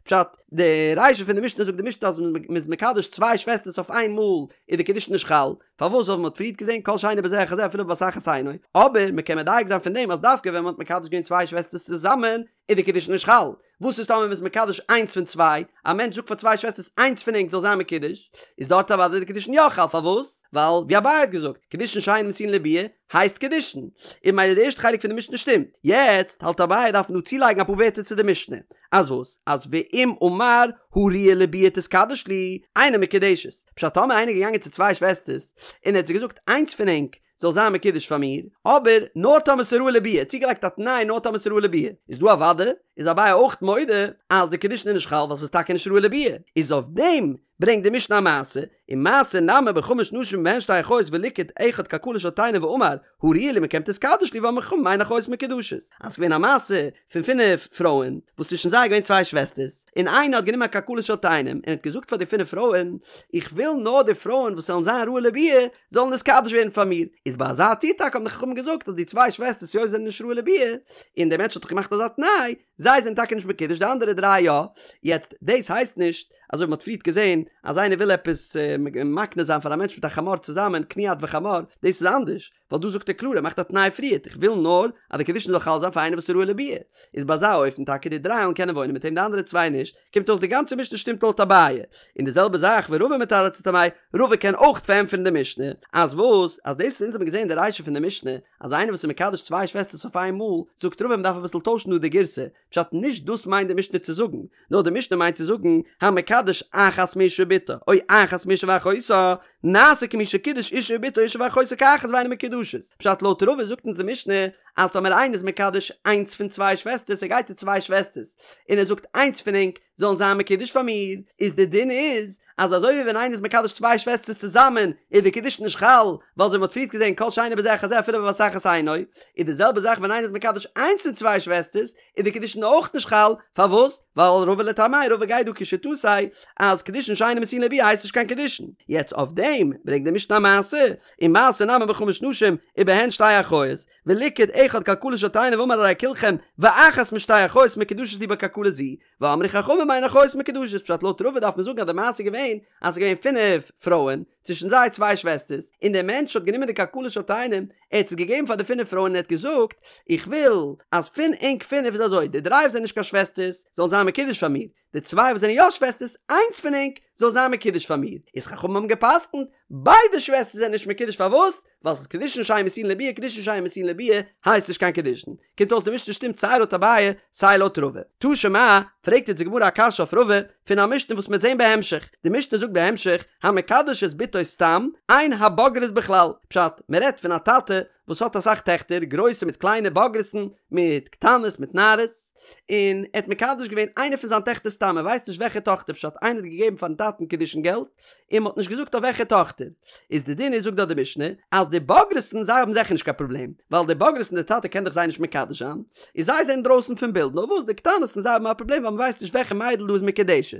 פשט, די רישא פון די משנה זאגט די משנה אז מען איז מקדש צוויי שוועסטערס אויף איין מאל איז די קידושין נישט חל, פארוואס ווייל מען האט פריערט געזען כל שאינו בזה אחר זה אפילו בבת אחת אינו, אבער מען קען מדייק זיין פון דעם אז דווקא ווען מען האט מקדש געווען צוויי שוועסטערס צוזאמען. איז די קידושין נישט חל, וואס איז טאמער מ'איז מקדש איינס פון צוויי, א מענטש זאגט פאר צוויי שוועסטערס איינס פון ענק זאל זיין מקודש, איז דארט אוודאי די קידושין יא חל, פארוואס? ווייל ווי אביי האט געזאגט, קידושין שאין מסורין לביאה הייסט קידושין, און ממילא די ערשטע חלק פון די משנה שטימט. יעצט האלט אביי דארף מען דא צולייגן אפאר ווערטער צו די משנה, אז וואס? אז ואם אמר הראויה לביאה תתקדש לי, אינה מקודשת, פשט טאמער איינער איז געגאנגען צו צוויי שוועסטערס און ער האט זיי געזאגט איינס פון ענק זאל זיין מקודש פאר מיר, אבער נאר טאמער ס'איז ראוי לביאה, צוגעלייגט א תנאי נאר טאמער ס'איז ראוי לביאה, איז דא אוודאי איז אביי אויך מודה אז די קידושין איז נישט חל ווייל ס'איז טאקע נישט ראוי לביאה, איז אויף דעם ברענגט די משנה א מעשה, ומעשה נמי בחמש נשים ובהן שתי אחיות וליקט אחד כלכלה של תאנים ואמר הראויה לי מכם תתקדש לי ואמרו חכמים אין אחיות מקודשות, אז ס'איז געווען א מעשה פון פינף פרויען וואס צווישן זיי איז געווען צוויי שוועסטערס, און איינע האט גענומען א כלכלה של תאנים און האט געזאגט פאר די פינף פרויען איך וויל נאר די פרויען וואס זאלן זיין ראוי לביאה זאלן נתקדש ווערן פאר מיר, איז ביי אזא ציור טאקע האבן די חכמים געזאגט אז די צוויי שוועסטערס היות זיי זענען נישט ראוי לביאה, און דער מענטש האט דאך געמאכט אזא תנאי, זיי זענען טאקע נישט מקודש די אנדערע דריי יא, יעצט דאס הייסט נישט אזוי ווי מ'האט פריערט געזען אז איינער וויל עפעס מקנה זיין פאר א מענטש מיט א חמור צוזאמען קני את וחמור, דאס איז אנדערש, ווייל דא זאגט ער קלאר ער מאכט א תנאי פריערט איך וויל נאר אז די קידושין זאל חל זיין פאר איינער וואס איז ראוי לביאה, איז ביי אזא אופן טאקע די דריי וועלן קענען וואוינען מיט אים די אנדערע צוויי נישט, קומט אויס די גאנצע משנה שטימט לויט אביי, און די זעלבע זאך ורבא מתרץ לטעמיה, רבא קען אויך פארענטפערן די משנה, אז וואס? אז דאס וואס אונז האבן געזען די רישא פון די משנה, אז איינער וואס איז מקדש צוויי שוועסטערס אויף איין מאל, זאגט רבא מ'דארף אביסל טוישן דא די גירסא, פשט נישט דאס מיינט די משנה צו זאגן, נאר די משנה מיינט צו זאגן, המקדש אחת מאשה ובתה, או אחת מאשה ואחותה, נעשה כמי שקידש אשה ובתה אשה ואחותה כאחת ואינן מקודשות. פשט לויט רבא זאגט אונז די משנה, אז טאמער איינער איז מקדש איינס פון צוויי שוועסטערס ער גייט צו צוויי שוועסטערס און ער זאגט איינס פון ענק זאלן זיין מקודש פאר מיר, איז די דין איז אז אזוי ווי ווען איינער איז מקדש צוויי שוועסטערס צוזאמען איז די קידושין נישט חל, ווייל אזוי ווי מ'האט פריערט געזען כל שאינו בזה אחר זה אפילו בבת אחת אינו, איז די זעלבע זאך ווען איינער איז מקדש איינס פון צוויי שוועסטערס איז די קידושין אויך נישט חל, פארוואס? ווייל רבא לטעמיה רבא גייט דא כשיטתו אז קידושין שאינן מסורין לביאה הייסט נישט קיין קידושין. יעצט אויף דעם ברענגט די משנה א מעשה, ומעשה נמי בחמש נשים ובהן שתי אחיות, וליקט אחד כלכלה של תאנים ואמר הרי כולכם ואחת משתי אחיות מקודשות לי בכלכלה זו, ואמרו חכמים אין אחיות מקודשות פשט לויט רבא דארף מען זאגן אז די מעשה איז געווען אז ס'איז געווען פינף פרויען, צווישן זיי צוויי שוועסטערס, און דער מענטש האט גענומען די כלכלה של תאנים, ער האט עס געגעבן פאר די פינף פרויען און ער האט געזאגט, איך וויל אז פון ענק פינף איז אזוי, די דריי וואס זענען נישט קיין שוועסטערס זאלן זיין מקודש פאר מיר, די צוויי וואס זענען יא שוועסטערס, איינס פון ענק זאל זיין מקודש פאר מיר. איז חכמים האבן גע'פסק'נט, ביידע שוועסטערס זענען נישט מקודש פארוואס? ווייל ס'איז קידושין שאין מסורין לביאה, קידושין שאין מסורין לביאה הייסט נישט קיין קידושין. קומט אויס די משנה שטימט סיי לויט אביי סיי לויט רבא. תא שמע, פרעגט יעצט די גמרא א קשיא אויף רבא, פון א משנה וואס מ'וועט זען בהמשך. די משנה זאגט בהמשך, המקדש את בתו סתם, אין הבוגרות בכלל. פשט, מ'רעדט פון א טאטע וואס האט אסאך טעכטער, גרויסע מיט קליינע, בוגרת'ן מיט קטנות מיט נערות, און ער האט מקדש געווען איינע פון זיין טעכטער סתם, ער ווייסט נישט וועלכע טאכטער, פשט איינער האט געגעבן פארן טאטן קידושין געלט, און מ'האט נישט געזאגט אויף וועלכע טאכטער. איז די דין איז זאגט דארט די משנה, אז די בוגרת'ן זיי האבן זיכער נישט קיין פראבלעם, ווייל די בוגרת'ן די טאטע קען דאך זיי נישט מקדש זיין, איז זיי זענען דרויסן פון בילד, נאר וואס די קטנות'ן זיי האבן א פראבלעם ווייל מ'ווייסט נישט וועלכע מיידל דא איז מקודשת.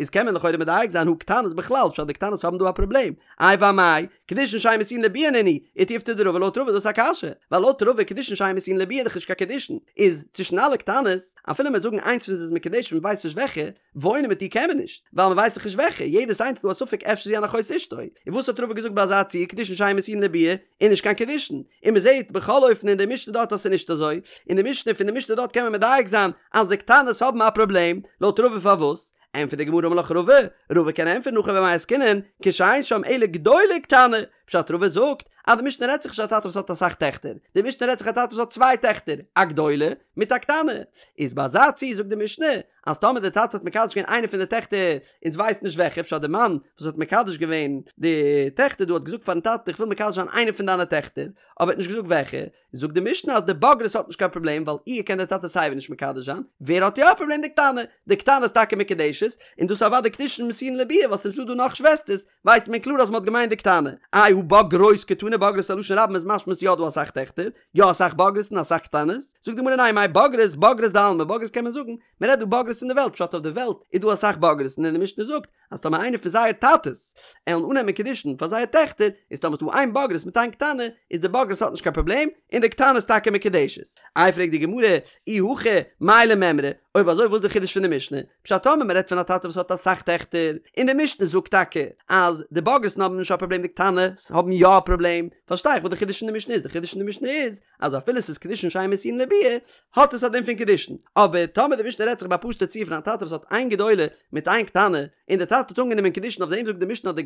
איז קען מען לכאורה מדייק זיין הא קטנות בכלל, פשט די קטנות האבן דא א פראבלעם, איי ואמאי, קידושין שאין מסורין לביאה נינהו, ותיובתא דרבא לויט רבא איז דאס א קשיא, ווייל לויט רבא קידושין שאין מסורין לביאה איז דאך נישט קיין קידושין, איז צווישן אלע קטנות, אפילו מ'וועט זאגן איינס פון זיי איז מקודשת מ'ווייסט נישט וועלכע, וואוינען מיט איר קען מען נישט, ווייל מ'ווייסט דאך נישט וועלכע, יעדעס איינס איז דא א ספק אפשר זי אן אחות אשתו, און וואס האט רבא געזאגט ביי אזא ציור קידושין שאין מסורין לביאה איז נישט קיין קידושין, און מ'זעט בכל אופן אין די משנה דארט אז ס'איז נישט אזוי, אין די משנה פון די משנה דארט קען מען מדייק זיין אז די קטנות האבן א פראבלעם, לויט רבא פארוואס? ענטפערט די גמרא אמר לך רבא, רבא קען ענטפערן הכא במאי עסקינן, כשאין שם אלא גדולה וקטנה, פשט רבא זאגט אז די משנה רעדט זיך נישט א טאטע וואס האט אסאך טעכטער, די משנה רעדט זיך א טאטע וואס האט צוויי טעכטער, א גדולה מיט א קטנה, איז ביי אזא ציור זאגט די משנה אז טאמער די טאטע האט מקדש געווען איינע פון די טעכטער אונז ווייסט נישט וועלכע, פשט די מאן וואס האט מקדש געווען די טעכטער דא האט געזאגט פארן טאטן איך וויל מקדש זיין איינע פון דיינע טעכטער, אבער ער האט נישט געזאגט וועלכע, זאגט די משנה אז די בוגרת האט נישט קיין פראבלעם ווייל איר קען דער טאטע סייווי נישט מקדש זיין, ווער האט יא א פראבלעם די קטנה, די קטנה איז טאקע מקודשת, און דאס איז אוודאי קידושין מסורין לביאה ווייל ס'איז נישטא דא נאך שוועסטערס, ווייסט מען קלאר אז מ'האט געמיינט די קטנה. איי הא בוגרות קתני בוגרות א לשון רבים איז משמע ס'יא דא אסאך טעכטער, יא אסאך בוגרות און אסאך קטנות, זאגט די גמרא ניין מאי בוגרות בוגרות דעלמא בוגרות קען מען זאגן, מ'רעדט דא בוגרות אין די וועלט פשט אויף די וועלט איז דא אסאך בוגרות און די משנה זאגט. אז טאמער איינער פון זייער טאטעס עלן אננעמען קידושין פאר זייער טעכטער, איז טאמער ס'דא איין בוגרת מיט איין קטנה, איז די בוגרת האט נישט קיין פראבלעם, און די קטנה איז טאקע מקודשת. איי פרעגט די גמרא, אי הכי מאי למימרא, אויב אזוי וואס איז די חידוש פון די משנה? פשט טאמער מ'רעדט פון א טאטע וואס האט אסאך טעכטער, און די משנה זאגט טאקע אז די בוגרת'ן האבן נישט א פראבלעם די קטנות האבן יא א פראבלעם, פארשטיי איך וואס די חידוש פון די משנה איז, די חידוש פון די משנה איז אז אפילו ס'איז קידושין שאין מסורין לביאה האט עס א דין פון קידושין, אבער טאמער די משנה רעדט זיך ביי א פשוטע ציור פון א טאטע וואס האט איין גדולה מיט איין קטנה, און די טאטע האט אנגענומען קידושין אויף דעם זאגט די משנה אז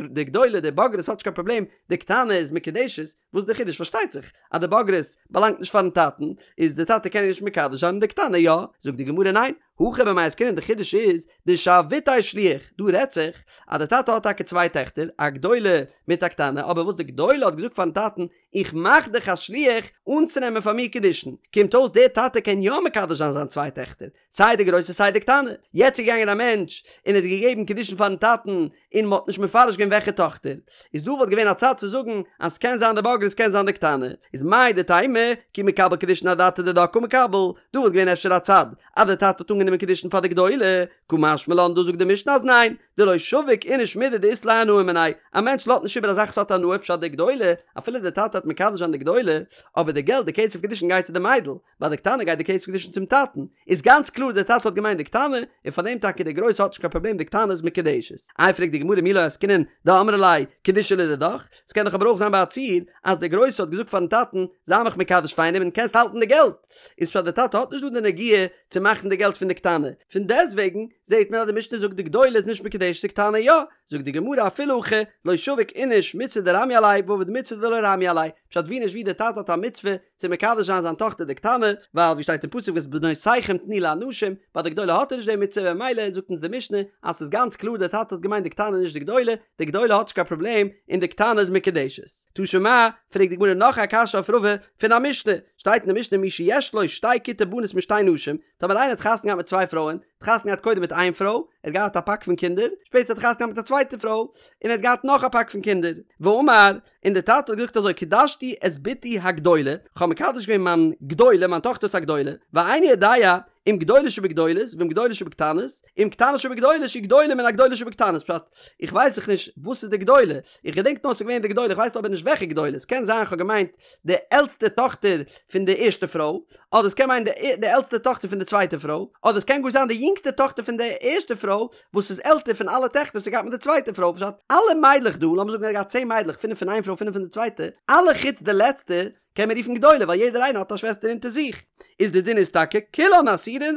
די גדולה די בוגרת האט נישט קיין פראבלעם די קטנה איז מקודשת, וואס איז די חידוש? פארשטייט זיך אז די בוגרת באלאנגט נישט פארן טאטן, איז די טאטע קען איר נישט מקדש זיין און די קטנה יא, זאגט די גמרא ניין, הכא במאי עסקינן די חידוש איז דשבתיה שליח, דא רעדט זיך אז די טאטע האט טאקע צוויי טעכטער א גדולה מיט א קטנה אבער וואס די גדולה האט געזאגט פארן טאטן איך מאך דיך א שליח אנצונעמען פאר מיר קידושין, קומט אויס דער טאטע קען יא מקדש זיין זיין צוויי טעכטער, סיי די גרויסע סיי די קטנה, יעצט איז געגאנגען א מענטש און האט געגעבן קידושין פארן טאטן און מ'האט נישט מפרש געווען וועלכע טאכטער, איז דא וואלט געווען א צד צו זאגן אז ס'קען זיין די בוגרת ס'קען זיין די קטנה, איז מהו דתימא כי מקבל קידושין אדעתא דידה קא מקבל, דא וואלט געווען אפשר א צד אז די טאטע האט אנגענומען קידושין פאר די גדולה, קא משמע לן דא זאגט די משנה אז ניין, דלא שביק איניש מידי דאית ליה הנאה מיניה, א מענטש לאזט נישט איבער א זאך וואס האט הנאה פשט די גדולה, אפילו די טאטע האט מקדש זיין די גדולה, אבער די געלט די כסף קידושין גייט צו די מיידל, ביי די קטנה גייט די כסף קידושין צום טאטן, איז גאנץ קלאר די טאטע האט געמיינט די קטנה, און פאר דעם טאקע די גרויסע האט נישט קיין פראבלעם די קטנה איז מקודשת. איי פרעגט די גמרא מי לא עסקינן דאמרה ליה קידושי לדידך, ס'קען דאך אבער אויך זיין ביי א ציור אז די גרויסע האט געזאגט פארן טאטן זיי מיך מקדש פאר איינעם און קענסט האלטן די געלט, איז פשט די טאטע האט נישט דא די נגיעה צו מאכן די געלט פון די קטנה, פון דעסטוועגן זעט מען אז די משנה זאגט די גדולה איז נישט מקודשת די קטנה יא, זאגט די גמרא אפילו הכי לא שביק איניש מצוה דרמיא עליה ועביד מצוה דלא רמיא עליה, פשט ווי נישט ווי די טאטע האט א מצוה צו מקדש זיין זיין טאכטער די קטנה, ווייל ווי שטייט אין פסוק ואת בנותיכם תנו לאנשים, ביי די גדולה האט ער נישט די מצוה ממילא זאגט אונז די משנה אז ס'איז גאנץ קלאר די טאטע האט געמיינט די קטנה נישט די גדולה, די גדולה האט נישט קיין פראבלעם און די קטנה איז מקודשת. תא שמע, פרעגט די גמרא נאך א קשיא אויף רבא פון א משנה, שטייט אין די משנה מי שיש לו שתי כיתי בנות משתי נשים, טאמער איינער האט חתונה געהאט מיט צוויי פרויען, האט חתונה געהאט קודם מיט איין פרוי, ער האט געהאט א פאק פון קינדער, שפעטער האט ער חתונה געהאט מיט א צווייטע פרוי, און ער האט געהאט נאך א פאק פון קינדער, ואמר, און דער טאטע האט געזאגט אזוי קידשתי את בתי הגדולה, כ'האב מקדש געווען מיין גדולה, מיין טאכטער וואס איז א גדולה, ואיני יודע אם גדולה שבגדולות ואם גדולה שבקטנות, אם קטנה שבגדולות שהיא גדולה מן הגדולה שבקטנות, פשט, איך ווייס דאך נישט וואס איז די גדולה, איך געדענק נאר ס'איז געווען די גדולה, איך ווייס אבער נישט וועלכע גדולה, ס'קען זיין כ'האב געמיינט די עלטסטע טאכטער פון די ערשטע פרוי, אדער ס'קען מיינען די עלטסטע טאכטער פון די צווייטע פרוי, אדער ס'קען גאר זיין די יונגסטע טאכטער פון די ערשטע פרוי וואס איז עלטער פון אלע טעכטער וואס ער געהאט מיט די צווייטע פרוי, פשט, אלע מיידלעך דא, לאמיר זאגן ער האט געהאט צען מיידלעך, פינף פון איין פרוי פינף פון די צווייטע, אלע חוץ די לעצטע, קען מען רופן גדולה ווייל יעדער איינער האט א שוועסטער אונטער זיך. איז די דין איז טאקע כולן אסורות,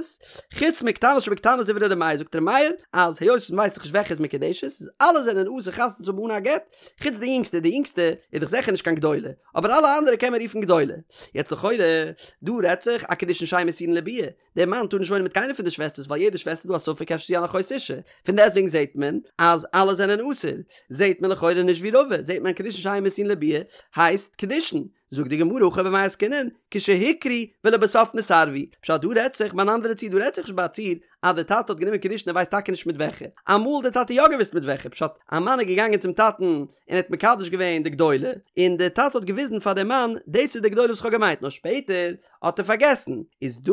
חוץ מקטנה שבקטנות דברי ר' מאיר זאגט ר' מאיר אז היות מען ווייסט דאך נישט וועלכע איז מקודשת איז אלע זענען אסור חתונה צו האבן אן א גט, חוץ די יונגסטע, די יונגסטע איז דאך זיכער נישט קיין גדולה, אבער אלע אנדערע קען מען רופן גדולה. יעצט לכאורה, דא רעדט זיך א קידושין שאין מסורין לביאה, דער מאן טאר נישט וואוינען מיט קיינער פון די שוועסטערס ווייל יעדע שוועסטער איז דא א ספק אפשר זי אן אחות אשה, פון דעסטוועגן זעט מען אז אלע זענען אסור, זעט מען לכאורה נישט ווי רבא, זעט מען קידושין שאין מסורין לביאה הייסט קידושין, זאגט די גמרא הכא במאי עסקינן כשהוכרו ולבסוף נתערבו, פשט דא רעדט זיך ביי אן אנדערע ציור דא רעדט זיך נישט ביי א ציור אז די טאטע האט גענומען קידושין ער ווייסט טאקע נישט מיט וועלכע, אמאל האט די טאטע יא געוואוסט מיט וועלכע, פשט א מאן איז געגאנגען צום טאטן און ער האט מקדש געווען די גדולה, און די טאטע האט געוויזן פאר די מאן דאס איז די גדולה וואס איך האב געמיינט נאר שפעטער האט ער פארגעסן, איז דא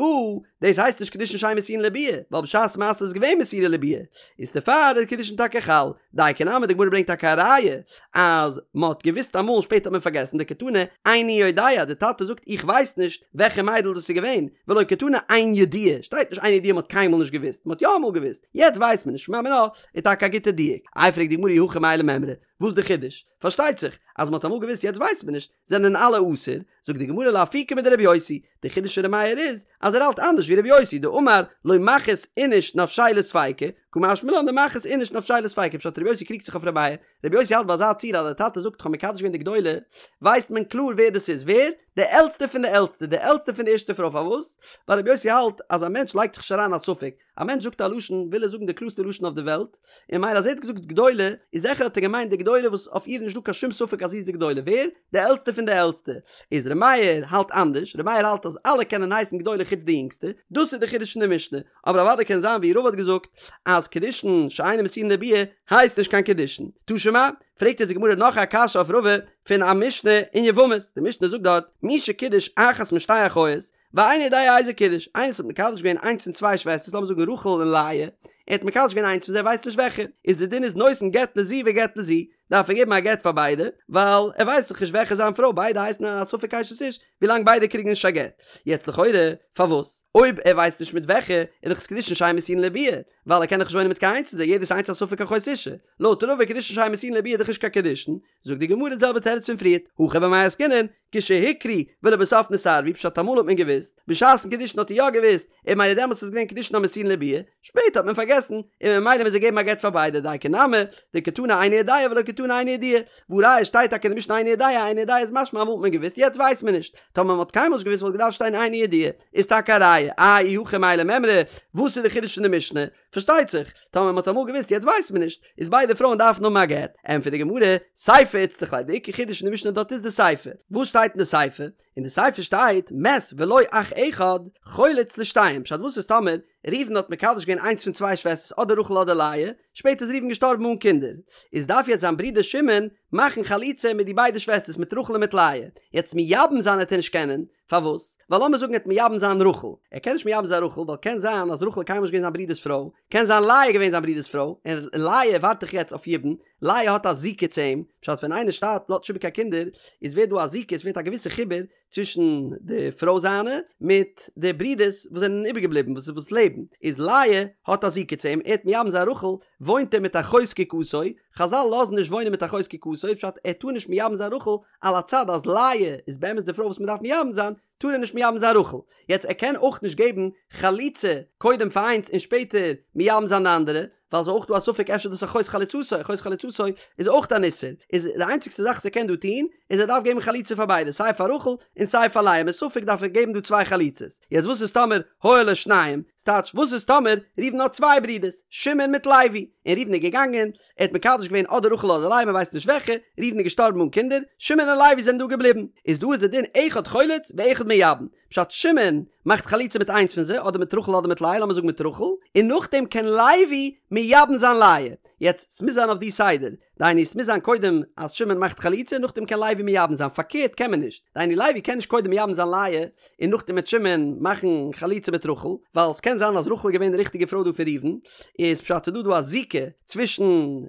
דאס הייסט נישט קידושין שאין מסורין לביאה, ווייל בשעת מעשה איז געווען מסורה לביאה, איז דערפאר איז קידושין טאקע חל, דייקא נמי די גמרא ברענגט טאקע א ראיה אז מען האט געוויסט אמאל שפעטער האט מען פארגעסן דקתני איני יודע די טאטע זאגט איך ווייס נישט וועלכע מיידל דאס איז געווען, ולא קתני אין ידוע, שטייט נישט אין ידוע מען האט קיינמאל נישט געוויסט, מען האט יא אמאל געוויסט, יעצט ווייסט מען נישט, שמע מינה איז טאקע א גוטע דיוק, איי פרעגט די גמרא אי הכי מאי למימרא, וואס איז די חידוש? פארשטייט זיך אז מען האט אמאל געוויסט יעצט ווייסט מען נישט, זענען אלע אסור, זאגט די גמרא לאפוקי מדרבי יוסי, די חידוש פון ר' מאיר איז אז ער האלט אנדערש ווי רבי יוסי דאמר לא מחית איניש נפשיה לספיקא, קא משמע לן דמחית איניש נפשיה לספיקא, פשט רבי יוסי קריגט זיך אויף ר' מאיר, רבי יוסי האלט ביי אזא ציור אז די טאטע זאגט כ'האב מקדש געווען די גדולה, ווייסט מען קלאר ווער דאס איז, ווער? די עלטסטע פון די עלטסטע, די עלטסטע פון די ערשטע פרוי, פארוואס? ווייל רבי יוסי האלט אז א מענטש לייגט זיך נישט אריין א ספק, א מענטש זאגט א לשון וויל ער זאגן די קלארסטע לשון אויף די וועלט, און ממילא אז ער האט געזאגט גדולה, איז זיכער האט ער געמיינט די גדולה וואס אויף איר איז נישטא קיין שום ספק אז זי איז די גדולה, ווער? די עלטסטע פון די עלטסטע. איז ר' מאיר האלט אנדערש, ר' מאיר האלט אז אלע קענען הייסן גדולה חוץ די יונגסטע, דאס איז די חידוש פון די משנה, אבער אוודאי קען זיין ווי רבא האט געזאגט אז קידושין שאינן מסורין לביאה הייסט נישט קיין קידושין. תא שמע, פרעגט אונז די גמרא נאך א קשיא אויף רבא פון א משנה אין יבמות, די משנה זאגט דארט מי שקידש אחת משתי אחיות, ואינו יודע איזו קידש, איינער וואס האט מקדש געווען איינס פון צוויי שוועסטערס לאמיר זאגן רחל און לאה, ער האט מקדש געווען איינס פון זיי ווייסט נישט וועלכע, איז די דין איז נותן גט לזו וגט לזו, דארף ער געבן א גט פאר ביידע, ווייל ער ווייסט דאך נישט וועלכע איז זיין פרוי, ביידע הייסן א ספק אשת איש, ווילאנג ביידע קריגן נישט א גט. יעצט לכאורה, פארוואס? אויב ער ווייסט נישט מיט וועלכע, איז דאך עס קידושין שאין מסורין לביאה, ווייל ער קען דאך נישט וואוינען מיט קיין איינס פון זיי, יעדעס איינס א ספק אחות אשה. לויט רבא קידושין שאין מסורין לביאה איז דאך נישט קיין קידושין, זאגט די גמרא די זעלבע תירוץ פון פריערט, הכא במאי עסקינן, כשהוכרו ולבסוף נתערבו, פשט אמאל האט מען געוואוסט, בשעת'ן קידושין האט ער יא געוואוסט, און ממילא דעמאלטס איז געווען קידושין המסורין לביאה, שפעטער האט מען פארגעסן, און ממילא מוז ער געבן א גט פאר ביידע, דייקא נמי, דקתני איני יודע ולא קתני איני ידועה, והא ראיה שטייט טאקע אין די משנה איני יודע, איני יודע איז משמע אמאל האט מען געוואוסט יעצט ווייסט מען נישט, טאמער מען האט קיינמאל נישט געוואוסט וואלט געדארפט שטיין איני ידועה, איז טאקע א ראיה, איי אי הכי מאי למימרא, וואס איז די חידוש פון די משנה? פארשטייט זיך, טאמער מען האט אמאל געוואוסט יעצט ווייסט מען נישט, איז ביידע פרויען דארפן האבן א גט. ענטפערט די גמרא, סיפא איצטריך ליה, די עיקר חידוש אין די משנה דארט איז די סיפא. וואס שטייט אין די סיפא? אין די סיפא שטייט, מת ולו אח אחד, חולץ לשתיהן, פשט וואס איז טאמער ראובן האט מקדש געווען איינס פון צוויי שוועסטערס אדער רחל אדער לאה, שפעטער איז ראובן געשטארבן אן קינדער, איז דארף יעצט זיין ברודער שמעון מאכן חליצה מיט די ביידע שוועסטערס מיט רחל און מיט לאה, יעצט מייבם זיין העט ער נישט קענען, פארוואס? ווייל לאמיר זאגן ער העט מייבם זיין רחל, ער קען נישט מייבם זיין רחל ווייל קען זיין אז רחל איז קיינמאל נישט געווען זיין ברודער'ס פרוי, קען זיין לאה איז געווען זיין ברודער'ס פרוי, און לאה ווארט דאך יעצט אויף יבום, לאה האט א זיקה צו אים, פשט ווען איינער שטארבט לאזט נישט איבער קיין קינדער, איז ווערט דא א זיקה, עס ווערט א געוויסע חיבור צווישן די פרוי זיינע מיט די ברודערס וואס זענען איבערגעבליבן וואס וואס לעבן, איז לאה האט א זיקה צו אים, ער העט מייבם זיין רחל, וואוינט ער מיט אחות זקוקתו, חזל לאזן נישט וואוינען מיט אחות זקוקתו, פשט ער טאר נישט מייבם זיין רחל, על הצד אז לאה איז באמת די פרוי וואס מען דארף מייבם זיין, טאר ער נישט מייבם זיין רחל. יעצט ער קען אויך נישט געבן חליצה קודם פאר איינס און שפעטער מייבם זיין די אנדערע, ווייל ס'איז אויך דא א ספק אפשר דאס אחות חלוצתו, אחות חלוצתו איז אויך אן איסור, איז די איינציגסטע זאך וואס ער קען דא טון, איז ער דארף געבן חליצה פאר ביידע, סיי פאר רחל און סיי פאר לאה, מספק דארף ער געבן דא צוויי חליצות. יעצט וואס איז טאמער היו לו שניים, ס'טייטש וואס איז טאמער ראובן האט צוויי ברידערס, שמעון מיט לוי, און ראובן איז געגאנגען, ער האט מקדש געווען אדער רחל אדער לאה מ'ווייסט נישט וועלכע, ראובן איז געשטארבן אן קינדער, שמעון און לוי זענען דא געבליבן, איז דא איז די דין אחד חולץ ואחד מייבם, פשט שמעון מאכט חליצה מיט איינס פון זיי אדער מיט רחל אדער מיט לאה לאמיר זאגן מיט רחל, און נאכדעם קען לוי מייבם זיין לאה, יעצט ס'מוז זיין אויף די סדר, דהיינו ס'מוז זיין קודם אז שמעון מאכט חליצה נאכדעם קען לוי מייבם זיין, פארקערט קען מען נישט, דהיינו לוי קען נישט קודם מייבם זיין לאה און נאכדעם וועט שמעון מאכן חליצה מיט רחל, ווייל ס'קען זיין אז רחל איז געווען די ריכטיגע פרוי דא פון ראובן, איז פשט ס'דא דא א זיקה צווישן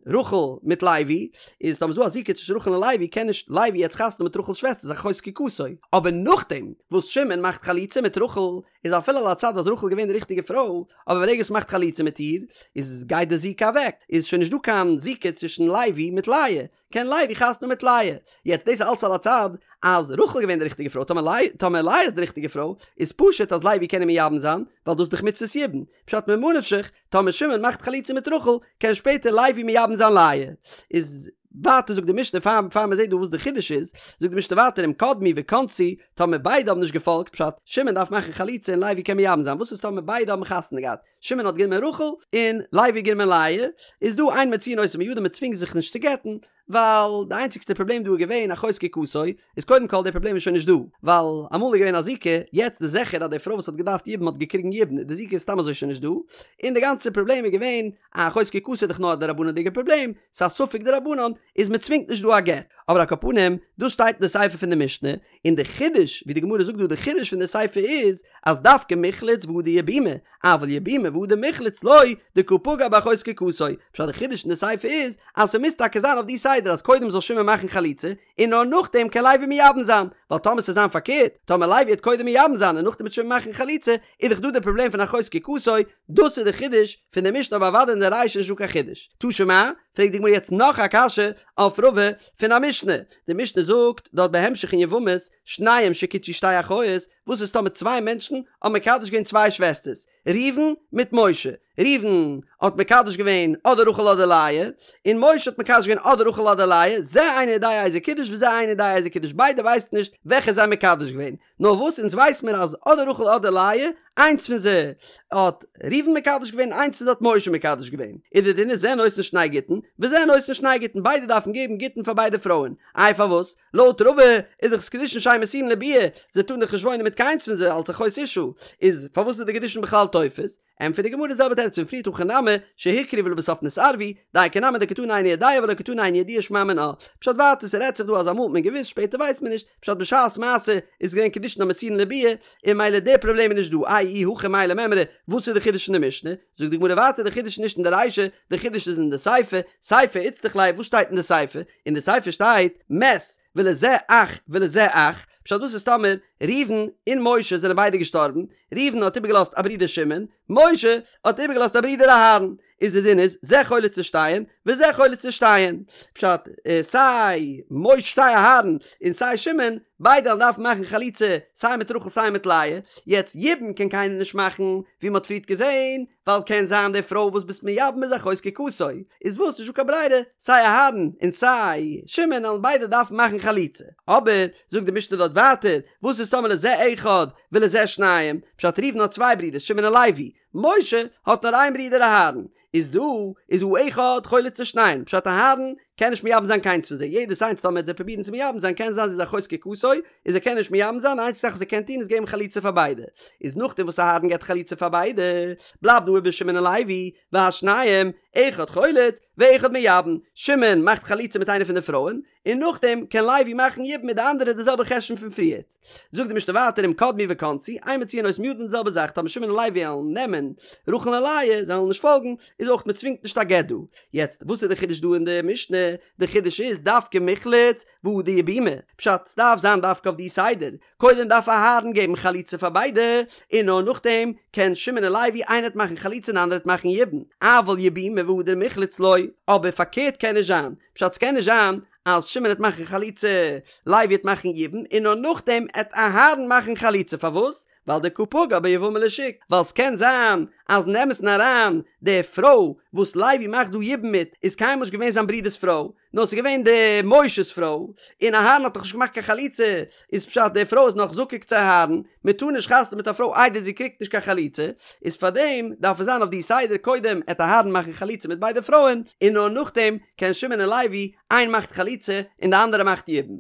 רחל מיט לוי, איז טאמער ס'דא א זיקה צווישן רחל און לוי קען נישט לוי יעצט חתונה מיט רחל'ס שוועסטער ס'איז אחות זקוקתו, אבער נאכדעם וואס שמעון מאכט חליצה מיט רחל איז אפילו על הצד אז רחל איז געווען די ריכטיגע פרוי, אבער ברגע וואס מ'מאכט חליצה מיט איר איז גייט די זיקה אוועק, איז שוין נישט דא קיין זיקה צווישן לוי מיט לאה, קען לוי חתונה מיט לאה. יעצט דאס איז אלץ על הצד אז רחל איז געווען די ריכטיגע פרוי, טאמער לאה טאמער לאה איז די ריכטיגע פרוי, איז פשוט אז לוי קען איר מייבם זיין, ווייל דאס איז דאך מצות יבום. פשט ממה נפשך, טאמער שמעון מאכט חליצה מיט רחל, קען שפעטער לוי מייבם זיין לאה. איז ווייטער זאגט די משנה פאר פאר מען זעט דא וואס די חידוש איז, זאגט די משנה ווייטער אם קדמו וכנסו, טאמער ביידע האבן נישט געפאלגט, פשט, שמעון דארף מאכן חליצה און לוי קען מייבם זיין, וואס איז טאמער ביידע האבן חתונה געהאט, שמעון האט גענומען רחל און לוי האט גענומען לאה, איז דא אין מוציאין אותו מידם מען צווינגט זיך נישט צו גט'ן, ווייל די איינציגסטע פראבלעם דא איז געווען אחות זקוקתו, איז קודם כל די פראבלעם איז שוין נישט דא, ווייל אמאל איז געווען א זיקה, יעצט איז זיכער אז די פרוי וואס האט געדארפט יבום האט געקריגן יבום, די זיקה איז סתם אזוי שוין נישט דא, און די גאנצע פראבלעם איז געווען אחות זקוקתו איז דאך נאר א דרבנן'דיגע פראבלעם, ס'איז א ספק דרבנן, איז מען צווינגט נישט דא א גט. אבער על כל פנים, דאס שטייט אין די סיפא פון די משנה, און די חידוש, ווי די גמרא זאגט דא די חידוש פון די סיפא איז, אז דווקא מיחלץ והדר יבומי, אבל יבומי והדר מיחלץ לא, דקא פגע באחות זקוקתו. פשט די חידוש אין די סיפא איז, אז ס'מוז טאקע זיין אויף די סדר אז קודם זאל שמעון מאכן חליצה, און נאר נאכדעם קען לוי מייבם זיין, ווייל טאמער ס'זאל זיין פארקערט, טאמער לוי וועט קודם מייבם זיין און נאכדעם וועט שמעון מאכן חליצה, איז דאך דא די פראבלעם פון אחות זקוקתו, דאס איז די חידוש פון די משנה אבער אוודאי אין די רישא איז נישטא קיין חידוש. תא שמע, פרעגט די גמרא יעצט נאך א קשיא אויף רבא פון א משנה, די משנה זאגט דארט בהמשך אין יבמות, שניים שקידשו שתי אחיות, וואס איז טאמער צוויי מענטשן האבן מקדש געווען צוויי שוועסטערס, ראובן מיט משה, ראובן האט מקדש געווען אדער רחל אדער לאה, און משה האט מקדש געווען אדער רחל אדער לאה, זה אינו יודע איזו קידש וזה אינו יודע איזו קידש, ביידע ווייסן נישט וועלכע זיי האבן מקדש געווען, נאר וואס אונז ווייס מיר אז אדער רחל אדער לאה, איינס פון זיי האט ראובן מקדש געווען און איינס פון זיי האט משה מקדש געווען, איז די דין איז זה נותן שני גיטין וזה נותן שני גיטין ביידע דארפן געבן גיטין פאר ביידע פרויען, איי פארוואס? לויט רבא איז דאך עס קידושין שאין מסורין לביאה, זיי טארן דאך נישט וואוינען מיט קיינס פון זיי אלץ אחות אשה, איז פארוואס איז די קידושין בכלל תופס? ענטפערט די גמרא די זעלבע תירוץ פון פריערט הכא נמי שהוכרו ולבסוף נתערבו, דייקא נמי דקתני איני יודע ולא קתני איני ידועה שמע מינה, פשט ווייטער ס'רעדט זיך דא אז אמאל האט מען געוואוסט שפעטער ווייסט מען נישט, פשט בשעת מעשה איז געווען קידושין. קידושין המסורין לביאה, און ממילא די פראבלעם איז נישט דא, איי אי הכי מאי למימרא, וואס איז די חידוש אין די משנה? זאגט די גמרא ווייטער די חידוש איז נישט אין די רישא, די חידוש איז אין די סיפא, סיפא איצטריך ליה, וואס שטייט אין די סיפא? אין די סיפא שטייט, מת, ולזה אח ולזה אח, פשט וואס איז טאמער ראובן און משה זענען ביידע געשטארבן, ראובן האט איבערגעלאזט א ברודער שמעון, משה האט איבערגעלאזט א ברודער אהרן, איז די דין איז זה חולץ לשתיהן וזה חולץ לשתיהן, פשט, סיי משה סיי אהרן און סיי שמעון ביידע וועלן דארפן מאכן חליצה סיי מיט רחל סיי מיט לאה, יעצט יבום קען קיינער נישט מאכן ווי מען האט פריערט געזען, ווייל קען זיין די פרוי וואס ביסט מייבם איז אחות זקוקתו, איז וואס נישטא קיין ברירה, סיי אהרן און סיי שמעון וועלן ביידע דארפן מאכן חליצה, אבער זאגט די משנה דארט ווייטער, וואס איז טאמער לזה אחד ולזה שניים, פשט ראובן האט צוויי ברידער שמעון און לוי, משה האט נאר איין ברודער אהרן, איז דא איז האחד חולץ לשניהם, פשט אהרן קען נישט מייבם זיין קיינס פון זיי, יעדעס איינס טאמער וועט זיי פרובירן צו מייבם זיין קען זיין זי איז אחות זקוקתו, איז ער קען נישט מייבם זיין, די איינציגסטע זאך וואס ער קען טון איז געבן חליצה פאר ביידע, איז נאכדעם וואס אהרן געבט חליצה פאר ביידע, בלייבט דא איבער שמעון און לוי, והשניים, אחד חולץ, ואחד מייבם, שמעון מאכט חליצה מיט איינע פון די פרויען, און נאכדעם קען לוי מאכן יבום מיט די אנדערע די זעלבע חשבון פון פריערט. זאגט די משנה ווייטער אם קדמו וכנסו, אין מוציאין אותן מידן די זעלבע זאך טאמער שמעון און לוי וועלן נעמען רחל און לאה, זיי וועלן נישט פאלגן, איז אויך מען צווינגט נישט א גט דא. יעצט וואס איז די חידוש דא אין די משנה? די חידוש איז דווקא מיחלץ והדר יבומי, פשט סדארף זיין דווקא אויף די סדר, קודם דארף אהרן געבן חליצה פאר ביידע, און נאר נאכדעם קען שמעון און לוי איינער וועט מאכן חליצה און די אנדערע וועט מאכן יבום, אבל יבומי והדר מיחלץ לא, אבער פארקערט קען נישט זיין, פשט סקען נישט זיין אז שמעון העט מאכן חליצה, לוי העט מאכן יבום, און נאר נאכדעם העט אהרן מאכן חליצה, פארוואס? ווייל דקא פגע ביבמה לשוק, ווייל ס'קען זיין אז אין אמת'ן אריין די פרוי וואס לוי מאכט דא יבום מיט איז קיינמאל נישט געווען זיין ברודער'ס פרוי, נאר ס'איז געווען די משה'ס פרוי, און אהרן האט דאך נישט געמאכט קיין חליצה, איז פשט די פרוי איז נאך זקוק צו אהרן, מען טאר נישט חתונה מיט א פרוי איידער זי קריגט נישט קיין חליצה, איז פארדעם דארף עס זיין אויף די סדר קודם עט אהרן מאכן חליצה מיט ביידע פרויען, און נאר נאכדעם קען שמעון און לוי, איין מאכט חליצה און די אנדערע מאכט יבום.